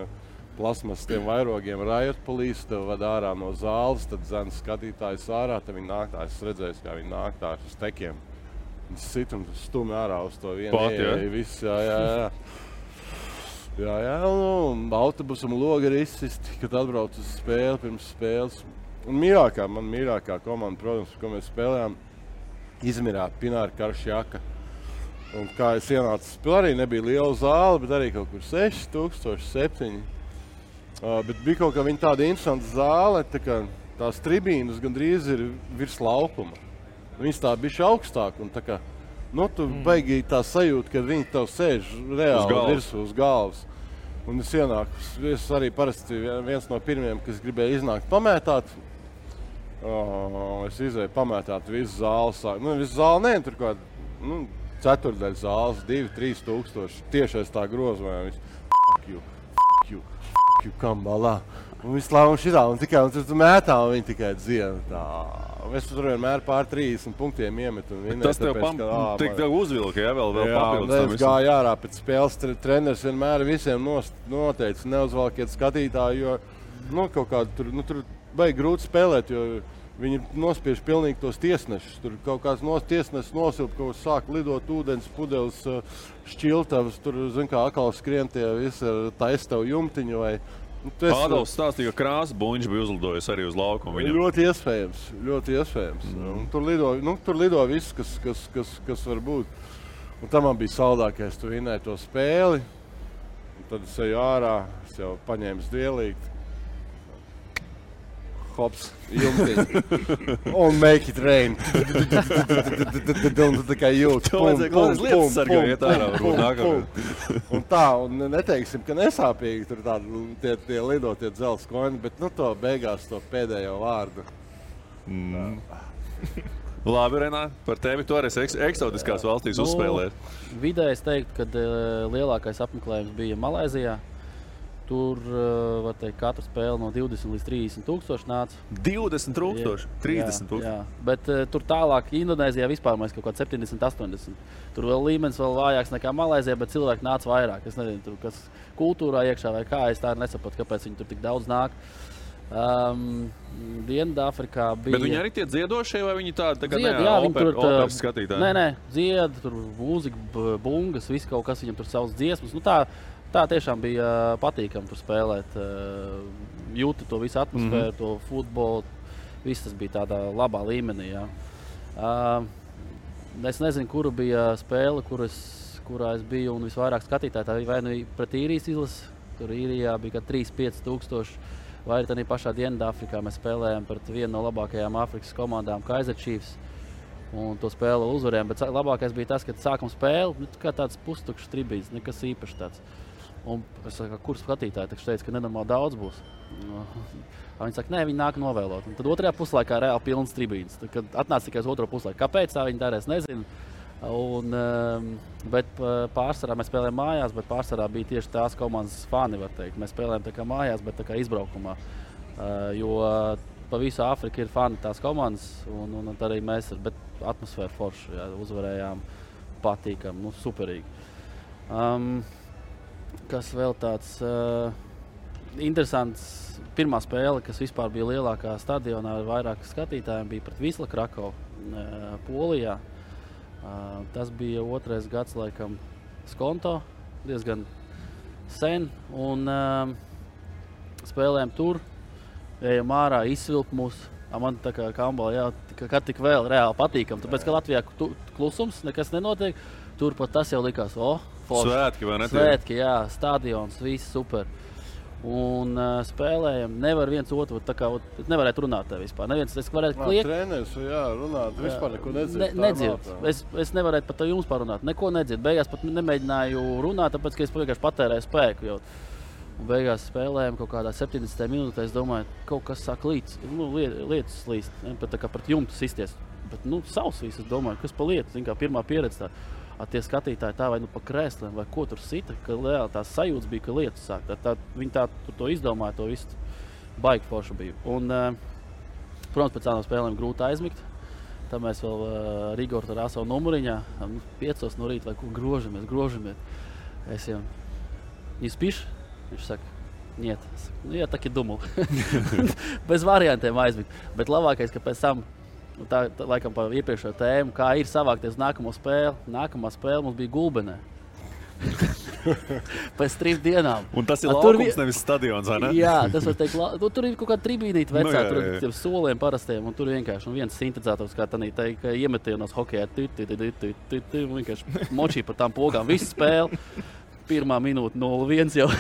F: plasmas tiem vairogiem Riot Police, tev ved ārā no zāles, tad dzen skatītājs ārā, tad viņi nāk tā, es redzēju, kā viņi nāk tā uz tekiem. Viņi sit un stumi ārā uz to vienu.
D: Pat, ja?
F: Viss, jā. Un autobusam logi ir izsisti, kad atbrauc uz spēli, pirms spēles. Un man mīļākā komanda, protams, ko mēs spēlējām, Izmirā, Pināra Karšjaka. Un kā es ienācu spēlē, arī nebija liela zāle, bet arī kaut kur 6000, 7. Bet bija kaut kā viņa tāda interesanta zāle, tās tribīnas gandrīz ir virs laukuma. Viņas tā bišķi augstāk un tu baigi tā sajūta, kad viņi tev sēž reāli virsū uz galvas. Un es ienāku, es arī parasti viens no pirmiem, kas gribēja iznākt pamētāt. Es izēju pamētāt visu zāles. Visu zāli ne, tur kāda, ceturdaļa zāles, 2-3 tūkstoši. Tiešais tā grozumā.
I: kambalā. Un visu laiku šitā, un tikai un tur mētā, un viņi tikai dziena tā. Es tur vienmēr pār 30 punktiem iemetu un vinēju.
D: Tas tev tev uzvilka, ja vēl papildus tam
I: es gāju ārā pēc spēles. Treneris vienmēr visiem noteica, neuzvalkiet skatītāju, jo kaut kādu tur baigi grūti spēlēt, jo viņi nospiež pilnīgi tos tiesnešus. Tur kaut kāds tiesnesis nosilp, kaut sāk lidot ūdens, pudeles, šķiltavas, tur, atkal skrien tie visi ar taistavu jumtiņu vai...
D: Ādams stāstīja, ka Krāsa Buņš bija uzlidojis arī uz laukumu.
I: Ļoti iespējams. Tur lido viss, kas var būt. Un tam man bija saldākais, tu vinēji to spēli. Un tad es eju ārā, es jau paņēmu dvielīgi. Hops, jumtiņi. Un make it rain. Un tikai jūt.
D: Lietas sargā iet ārā.
I: Un tā, un neteiksim, ka nesāpīgi tur tie lido tie dzelzs koņi, bet to beigās to pēdējo vārdu.
D: Labi, Renā, par tevi tu arī eksotiskās valstīs uzspēlēt.
H: Vidēji es teiktu, ka lielākais apmeklējums bija Malaizijā. Tur, var teikt, katra spēle no 20 līdz 30 tūkstoši nāca.
D: 20 tūkstoši? 30 tūkstoši?
H: Jā, bet tur tālāk Indonēzijā vispār mēs kaut kā 70, 80. Tur vēl līmenis vēl vājāks nekā Malaizijā, bet cilvēki nāca vairāk. Es nezinu, tur kas kultūrā iekšā vai kā, es tā nesapratu, kāpēc viņi tur tik daudz nāk. Dienvidāfrikā bija...
D: Bet viņi arī tie dziedošie vai viņi tādi operas skatītāji?
H: Nē, dzied, tur mūzika, bungas, viss kaut kas viņam tur savas dziesmas. Tā tiešām bija patīkami tur spēlēt. Jūti to visu atmosfēru, to futbolu. Viss tas bija tādā labā līmenī. Jā. Es nezinu, kura bija spēle, kurā es biju un visvairāk skatītāji. Tā vai nu pret īrijas izlasi. Tur īrijā bija 3-5 tūkstoši. Vai arī pašā Dienvidāfrikā mēs spēlējām pret vienu no labākajām Āfrikas komandām, Kaizer Chiefs. Un to spēli uzvarējām. Bet labākais bija tas, kad sākam spēli, kā tāds pustukšs tribīns, nekas īpašs tāds. Un es saku, kur skatītāji teica, ka nenormāli daudz būs. Viņi saka, nē, viņi nāk novēlot. Un tad otrajā puslaikā reāli pilns tribīns. Kad atnāca tikai uz otro puslaiku. Kāpēc tā viņi darēs, nezinu. Bet pārsvarā mēs spēlējām mājās, bet pārsvarā bija tieši tās komandas fani, var teikt. Mēs spēlējām tā kā mājās, bet tā kā izbraukumā. Jo pa visu Āfriku ir fani tās komandas, un arī mēs ar, bet atmosfēra forša, jā, uzvarējām patīkam, superīgi. Kas vēl tāds interesants, pirmā spēle, kas vispār bija lielākā stadionā ar vairāk skatītājiem, bija pret Wisla Krakow, Polijā. Tas bija 2. gads, laikam, Skonto, diezgan sen, un spēlējām tur, ejam ārā, izsvilp mūs. Man tā kā kambalā, kad tik vēl reāli patīkam, tāpēc, ka Latvijā klusums, nekas nenotiek, tur pat tas jau likās,
D: Svētki, vai ne?
H: Svētki, jā, stadions, viss super. Un spēlējam, nevar viens otru, tā kā nevarētu runāt te vispār. Neviens, es varētu kliegt.
I: Treneris, jā, runāt, vispār neko nedzird.
H: Nedzird. Es nevarētu pat jums parunāt, neko nedzird. Beigās pat nemēģināju runāt, tāpēc, ka es vienkārši patērēju spēku. Un beigās spēlējam kaut kādā 70. minūtē, es domāju, kaut kas sāk lietas slīst, pat tā kā pret jumtu sisties. Bet, savs viss, es domāju, kas pa lietu, zin kā pirmā pieredze tā. Tie skatītāji tā vai pa krēsliem, vai ko tur sita, ka reāli tās sajūtas bija, ka lietas sāk. Viņi to izdomāja, to visu baigi forši bija. Un, protams, pēc tādām spēlēm grūti aizmigt. Tā mēs vēl Rigoru ar savu numuriņā, 5 no rīta, vai ko grožamies. Es jau, не спишь? Viņš saka, нет. Я так и думал. Bez variantiem aizmigt. Bet labākais, ka pēc tam, tā laikam par iepriekšējo tēmu, kā ir savākties nākamo spēli. Nākamā spēle mums bija Gulbenē. Pēc 3 dienām.
D: Un tas ir laukums, nevis stadions, vai ne?
H: Jā, tas var teikt, tur ir kaut kāda tribīnīta vecā, tur ir tiem soliem parastiem, un tur vienkārši viens sintetizators, kā tanī teikt, iemetienos hokejā, vienkārši močī par tām pogām, visu spēli. Pirmā minūte 0-1 jau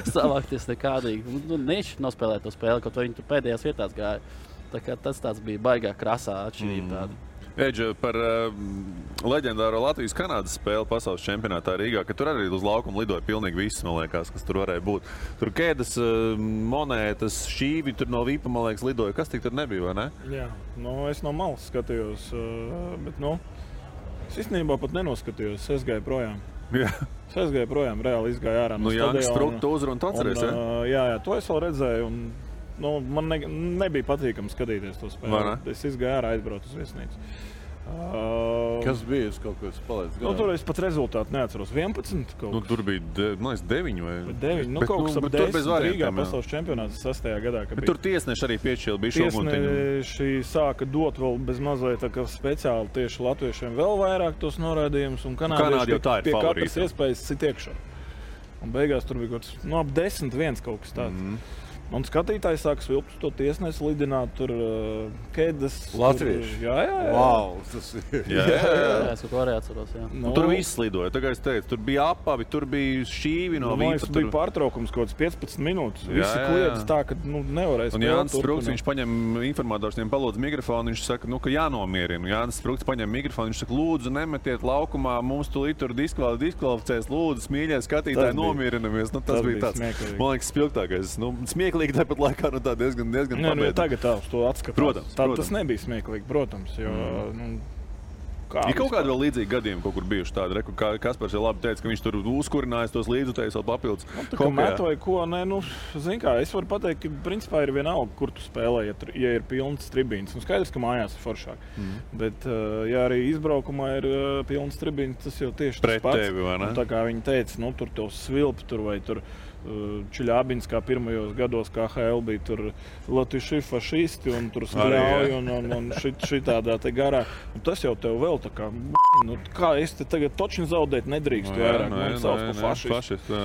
H: savākties nekādīgi. Nešķi nospēlēt to spēli, kaut viņi tur pēdējās vietās gāja. Tā kā tas tāds bija baigā krasā atšķirība tāda.
D: Eģe, par leģendāro Latvijas-Kanādas spēli pasaules čempionātā Rīgā, ka tur arī uz laukumu lidoja pilnīgi viss, man liekas, kas tur varēja būt. Tur kēdes, monētas, šīvi, tur no Vīpa, man liekas, lidoja. Kas tik tur nebija, vai ne?
G: Jā, es no malas skatījos, bet, Es īstenībā pat nenoskatījos, es gāju projām.
D: Jā.
G: Es gāju projām, reāli izgāju ārā no
D: Jānis
G: stadiona.
D: Sprūk to uzrunu, tu atceries,
G: Jā, to es vēl redzēju. Un, man nebija patīkami skatīties to spēli. Es izgāju ārā, aizbraucu uz viesnīcu.
I: Kas bija? Es kaut ko palaidu.
G: Tur es pat rezultātu neatceros. 11 kaut kas.
D: Tur bija 9 vai
G: 9. Kaut kas ap 10 Rīgā pasaules čempionāts 6. gadā.
D: Tur tiesneši arī piešķīla bija šoguntiņu.
G: Tiesneši sāka dot vēl bez mazliet tā kā speciāli tieši latviešiem vēl vairāk tos norādījumus. Un kanādieši pie katras iespējas sit iekšā. Un beigās tur bija kaut kas ap 10-1 kaut kas tāds. Un skatītājs sāka svilpt to tiesnesi, lidināt tur kēdes.
I: Latvieši?
G: Jā.
I: Wow, tas ir.
H: Jā, es kaut ko arī atceros, jā.
D: Tur viss lidoja, tā kā es teicu, tur bija apavi, tur bija šķīvi no vīpa.
G: Tur bija pārtraukums kaut kāds 15 minūtes. Visi kliedz tā, ka nevarēs.
D: Un Jānis Sprūks, viņš paņem informators, viņiem palūdz mikrofonu, viņš saka, ka jānomierina. Jānis Sprūks paņem mikrofonu, viņš saka, lūdzu, nemetiet laukumā, mums tulīt tur diskvalificēs, lūdzu, mīļie skatītāji, nomierinamies. Tas bija tāds, man liekas, spilgtākais. Smieklīgi tāpat laikā, tā diezgan pabeidz.
G: Tagad tā uz to atskatās.
D: Protams.
G: Tas nebija smieklīgi, protams, jo,
D: Ir kaut kādi vēl līdzīgi gadījumi, kaut kur bijuši tādi, kā Kaspars jau labi teica, ka viņš tur uzkurinājis tos līdzutējus vēl papildus.
G: Tā kā met vai ko, zin kā, es varu pateikt, ka principā ir vienalga, kur tu spēlē, ja ir pilns tribīns. Skaidrs, ka mājās ir foršāk. Bet, ja arī izbraukumā ir pilns tribīns, tas jau tieši
D: pret
G: tas pats.
D: Tevi, vai ne?
G: Tā kā viņi teica, tur tev svilp tur vai tur Čiļābins, kā pirmajos gados KHL bija tur latviši fašisti un tur skļauj un šitādā te garā. Un tas jau tev vēl tā kā, kā es te tagad točni zaudēt nedrīkstu vairāk, man sauc pa fašistu.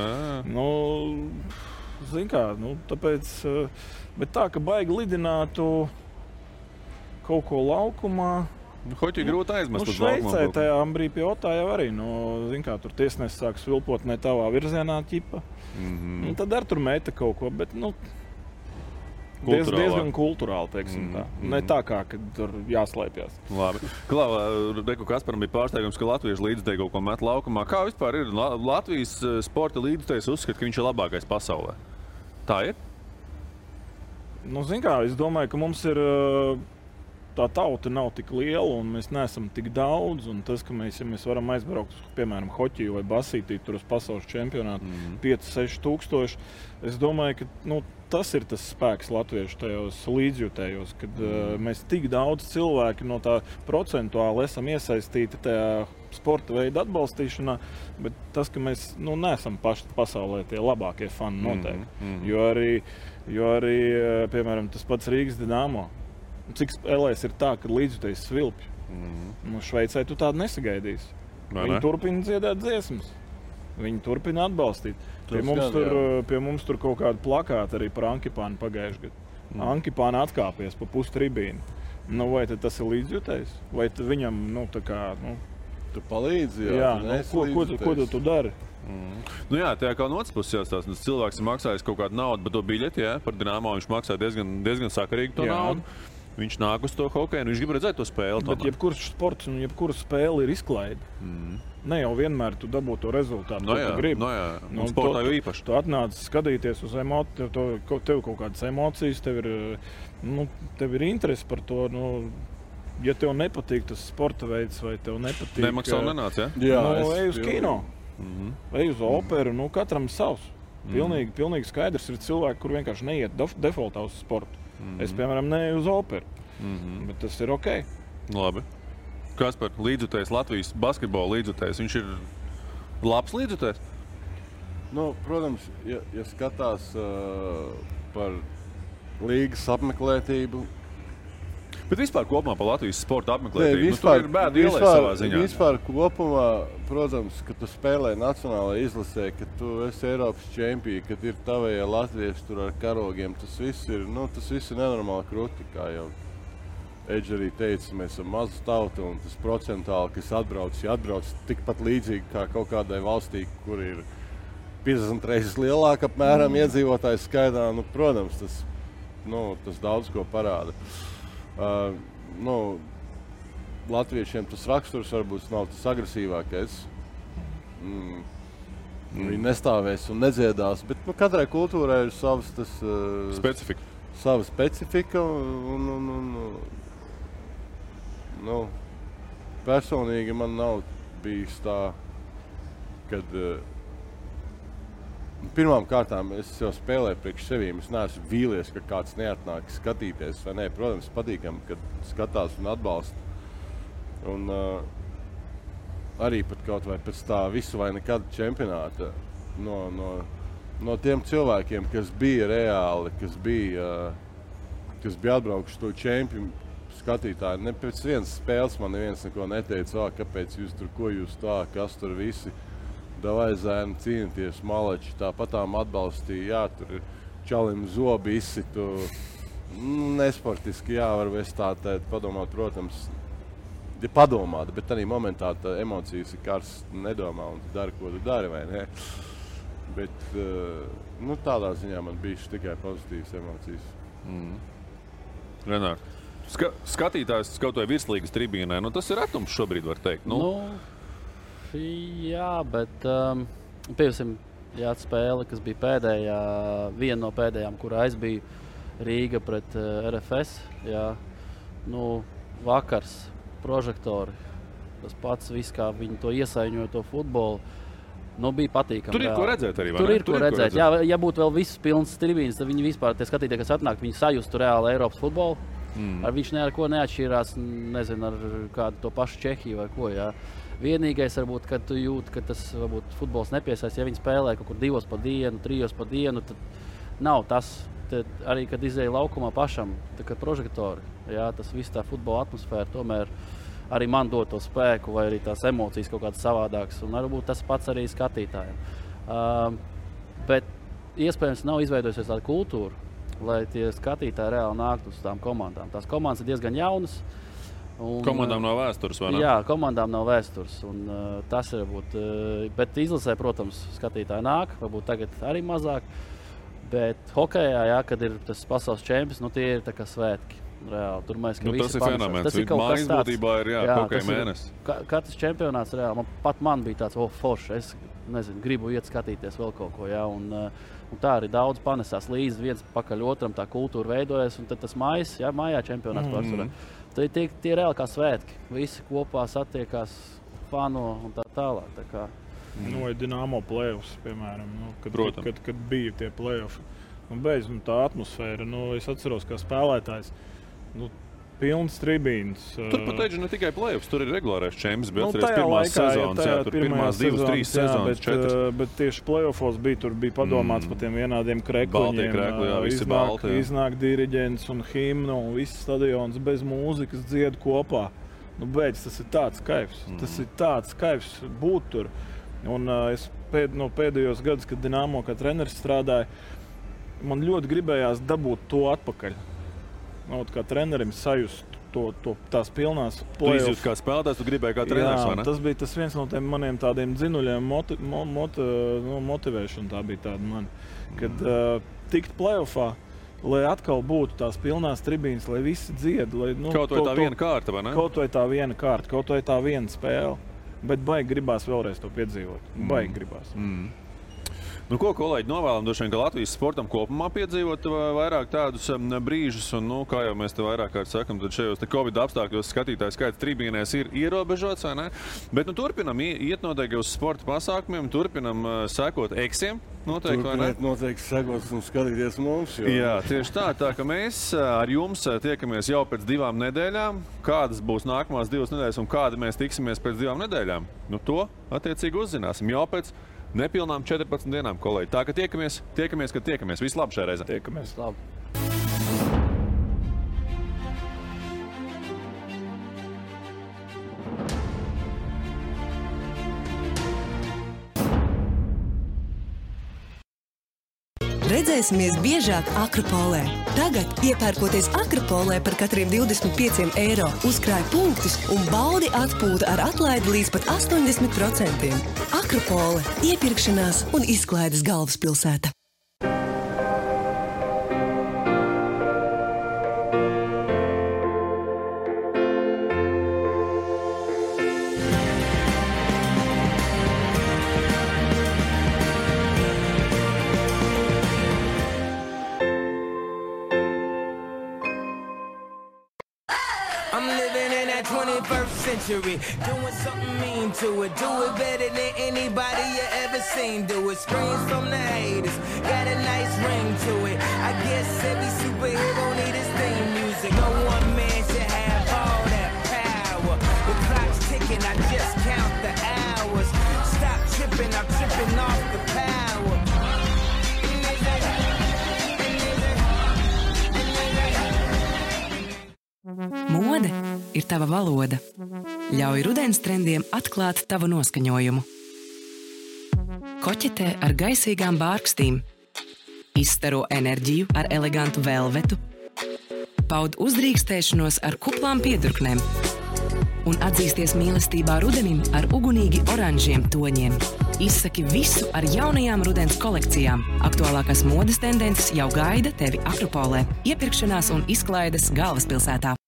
G: Zin kā, tāpēc, bet tā, ka baigi lidinātu kaut ko laukumā.
D: Hoķi grūti aizmest uz laukumā.
G: Šveicē tajā Ambrī pie Otā jau arī, zin kā, tur tiesnesis sāk svilpot ne tavā virzienā ķipa. Tad ar tur meta kaut ko, bet diezgan kulturāli, teiksim tā. Ne tā kā, kad tur jāslēpjas.
D: Labi. Reku Kasparam bija pārsteigums, ka latvieši līdzutēji kaut ko met laukumā. Kā vispār ir Latvijas sporta līdzutējs uzskata, ka viņš ir labākais pasaulē? Tā ir?
G: Zin kā, es domāju, ka mums ir tā tauta nav tik liela un mēs neesam tik daudz. Un tas, ka mēs varam aizbraukt, piemēram, hoķiju vai basītī tur uz pasaules čempionātu 5-6 tūkstoši, es domāju, ka tas ir tas spēks latviešu tajos līdzjutējos, kad mēs tik daudz cilvēki no tā procentuāli esam iesaistīti tajā sporta veida atbalstīšanā, bet tas, ka mēs neesam paši pasaulē tie labākie fani noteikti. Jo arī, piemēram, tas pats Rīgas Dinamo. Cik spēlēs ir tā, ka līdzjutējs svilpj. Šveicē tu tādu nesagaidīsi. Viņi turpina dziedāt dziesmas. Viņi turpina atbalstīt. Pie mums tur kaut kāda plakāta arī par Ankipānu pagājušajā gadā. Ankipāna atkāpies pa pustribīnu. Vai tas ir līdzjutējs? Vai viņam,
I: tu palīdzi?
G: Jā, ko tu dari?
D: Jā, tajā kā no otras puses jāstāsta. Cilvēks ir maksājis kaut kādu naudu, bet to biļeti, par Dinamo viņš maksā diezgan sakarīgi to naudu. Viņš nāk uz to hokeju un viņš grib redzēt to spēli.
G: Bet jebkurš sports un jebkura spēle ir izklaide. Ne jau vienmēr tu dabū to rezultātu, ko tu gribi.
D: Sportā jau īpaši.
G: Tu atnāc skatīties uz emociju, tev kaut kādas emocijas, tev ir interesi par to. Ja tev nepatīk tas sporta veids vai tev nepatīk...
D: Nemaksā un nenāc, ja?
G: Jā, ej uz kino, ej uz operu, katram savs. Pilnīgi skaidrs ir cilvēki, kur vienkārši neiet defaultā uz sportu. Es, piemēram, neeju uz operu, bet tas ir ok.
D: Labi. Kaspar, līdzutējs, Latvijas basketbola līdzutējs, viņš ir labs līdzutējs?
I: Protams, ja skatās par līgas apmeklētību.
D: Bet vispār kopumā par Latvijas sporta apmeklētību, tur ir bēdu ielē savā ziņā.
I: Vispār kopumā, protams, ka tu spēlē nacionālajā izlasē, ka tu esi Eiropas čempioni, kad ir tavējie latvieši tur ar karogiem, tas viss ir nenormāli krūti, kā jau Edži arī teica, mēs esam maza tauta un tas procentāli, kas atbrauc tikpat līdzīgi kā kaut kādai valstī, kur ir 50 reizes lielāka apmēram iedzīvotājs skaitā, protams, tas daudz ko parāda. Latviešiem tas raksturs varbūt nav tas agresīvākais. Viņi nestāvēs un nedziedās, bet katrai kultūrai ir savs
D: specifika.
I: Sava specifika personīgi man nav bijis tā, kad pirmām kārtām es jau spēlēju priekš sevīm. Es neesmu vīlies, ka kāds neatnāk skatīties. Vai ne? Protams, patīkam, kad skatās un atbalsta. Un arī pat kaut vai pēc tā visu vai nekad čempionāta no tiem cilvēkiem, kas bija reāli, kas bija atbraukuši to čempionu skatītāji. Ne pēc vienas spēles man neviens neko neteica, kāpēc jūs tur, ko jūs tā, kas tur visi. Davai zēni cīnīties, malači, tāpatām atbalstīja, jā, tur čalim zobi izsitu. Nesportiski, jā, varbūt tā padomāt, protams, padomāt, bet tādā momentā tā emocijas ir karsts, nedomā un tu dari, ko tu dari, vai ne? Bet, tādā ziņā man bija tikai pozitīvas emocijas.
D: Renār, skatītājs kaut vai virslīgas tribīnē, tas ir retums šobrīd, var teikt.
H: Jā, bet pieņemsim, spēle, kas bija pēdējā, viena no pēdējām, kurā es biju Rīga pret RFS. Jā, vakars, prožektori, tas pats viss, kā viņi to iesaiņoja, to futbolu. Bija patīkami.
D: Tur ir ko redzēt arī, vai ne?
H: Tur ir ko redzēt. Jā, ja būtu vēl visas pilnas tribīnes, tad viņi vispār, tie skatītāji, kas atnāk, viņi sajustu reāli Eiropas futbolu. Viņš ar ko neatšķirās, nezinu, ar kādu to pašu Čehiju vai ko, jā. Vienīgais, varbūt, kad tu jūti, ka tas varbūt futbols nepiesaist, ja viņi spēlē kaut kur 2 pa dienu, 3 pa dienu, tad nav tas. Tad arī, kad izēja laukumā pašam, tā kā prožektori, jā, tas viss tā futbola atmosfēra tomēr arī man dod to spēku vai arī tās emocijas kaut kādas savādākas. Un varbūt tas pats arī skatītājiem. Bet iespējams nav izveidojusies tāda kultūra, lai tie skatītāji reāli nāktu uz tām komandām. Tās komandas ir diezgan jaunas.
D: Komandām nav vēstures, vai ne?
H: Jā, komandām nav vēstures. Tas ir varbūt, bet izlasē, protams, skatītāji nāk, varbūt tagad arī mazāk. Bet hokejā, kad ir tas pasaules čempions, tie ir tā kā svētki. Reāli, tur mēs,
D: tas ir fenomens. Tas ir kaut kas tāds. Būtībā ir hokeja mēnesis.
H: Katrs čempionāts reāli. Man bija tāds, forši. Es nezinu, gribu iet skatīties vēl kaut ko. Jā, un tā arī daudz panesās līdzi viens pakaļ otram, tā kultūra veidojas. Un tad tas mājā čempionāts pārsvarā. Tie ir reāli kā svētki. Visi kopā satiekās, fano un tā tālāk. Tā kā.
G: Dinamo play-offs, piemēram, kad bija tie play-offi. Un beidz tā atmosfēra. Es atceros, kā spēlētājs. Pilns tribīns.
D: Tur pat teicu ne tikai play-offs, tur ir regulārais čempions, bet atceries pirmās sezonas, tur pirmās 2-3 sezonas, 4.
G: Bet tieši play-offos tur bija padomāts par tiem vienādiem krekliņiem.
D: Visi balti.
G: Iznāk diriģents un himna un viss stadions bez mūzikas dzied kopā. Beidz, tas ir tāds kaifs. Tas ir tāds kaifs būt tur. Un es pēdējos gadus, kad Dinamo kā treneris strādāja, man ļoti gribējās dabūt to atpakaļ. Kā trenerim sajust tās pilnās play-off.
D: Tu izjūti kā spēlētājs, tu gribēji kā treneris, vai ne?
G: Tas bija tas viens no tiem maniem tādiem dzinuļiem motivēšana, tā bija tāda man. Kad tikt play-offā, lai atkal būtu tās pilnās tribīnes, lai visi dzied.
D: Kaut vai tā viena kārta, vai ne?
G: Kaut vai tā viena kārta, kaut vai tā viena spēle. Bet baigi gribās vēlreiz to piedzīvot. Baigi gribās.
D: Ko, kolēģi, novēlam droši vien, ka Latvijas sportam kopumā piedzīvot vairāk tādus brīžus. Un, kā jau mēs te vairāk kārt sakam, tad šajos Covid apstākļos skatītāju skaits tribīnēs ir ierobežots, vai ne? Bet turpinam iet noteikti uz sporta pasākumiem, turpinam sekot eksiem.
I: Noteikti sekot un skatīties mums.
D: Jā, tieši tā ka mēs ar jums tiekamies jau pēc 2 nedēļām. Kādas būs nākamās 2 nedēļas un kādi mēs tiksimies pēc 2 nedēļām? To attiecīgi uzzināsim jau pēc nepilnām 14 dienām, kolēģi. Tā, ka tiekamies, kad tiekamies. Viss labi šajā reizē.
G: Tiekamies.
H: Labi.
C: Redzēsimies biežāk Akropolē. Tagad, iepērkoties Akropolē par katriem 25 eiro, uzkrāj punktus un baudi atpūtu ar atlaidi līdz pat 80%. Akropole – iepirkšanās un izklaides galvaspilsēta.
B: I'm living in that 20 21st century. Doing something mean to it. Do it better than anybody you ever seen. Do it. Screams from the haters. Got a nice ring to it. I guess every superhero need his theme music. No one man should have all that power. The clock's ticking, I just count the hours. Stop tripping, I'm tripping off the power.
A: Mode ir tava valoda. Ļauj rudens trendiem atklāt tavu noskaņojumu. Koķetē ar gaisīgām bārkstīm. Izstaro enerģiju ar elegantu velvetu. Paud uzdrīkstēšanos ar kuplām piedurknēm. Un atzīsties mīlestībā rudenim ar ugunīgi oranžiem toņiem. Izsaki visu ar jaunajām rudens kolekcijām. Aktuālākās modes tendences jau gaida tevi Akropolē. Iepirkšanās un izklaides galvaspilsētā.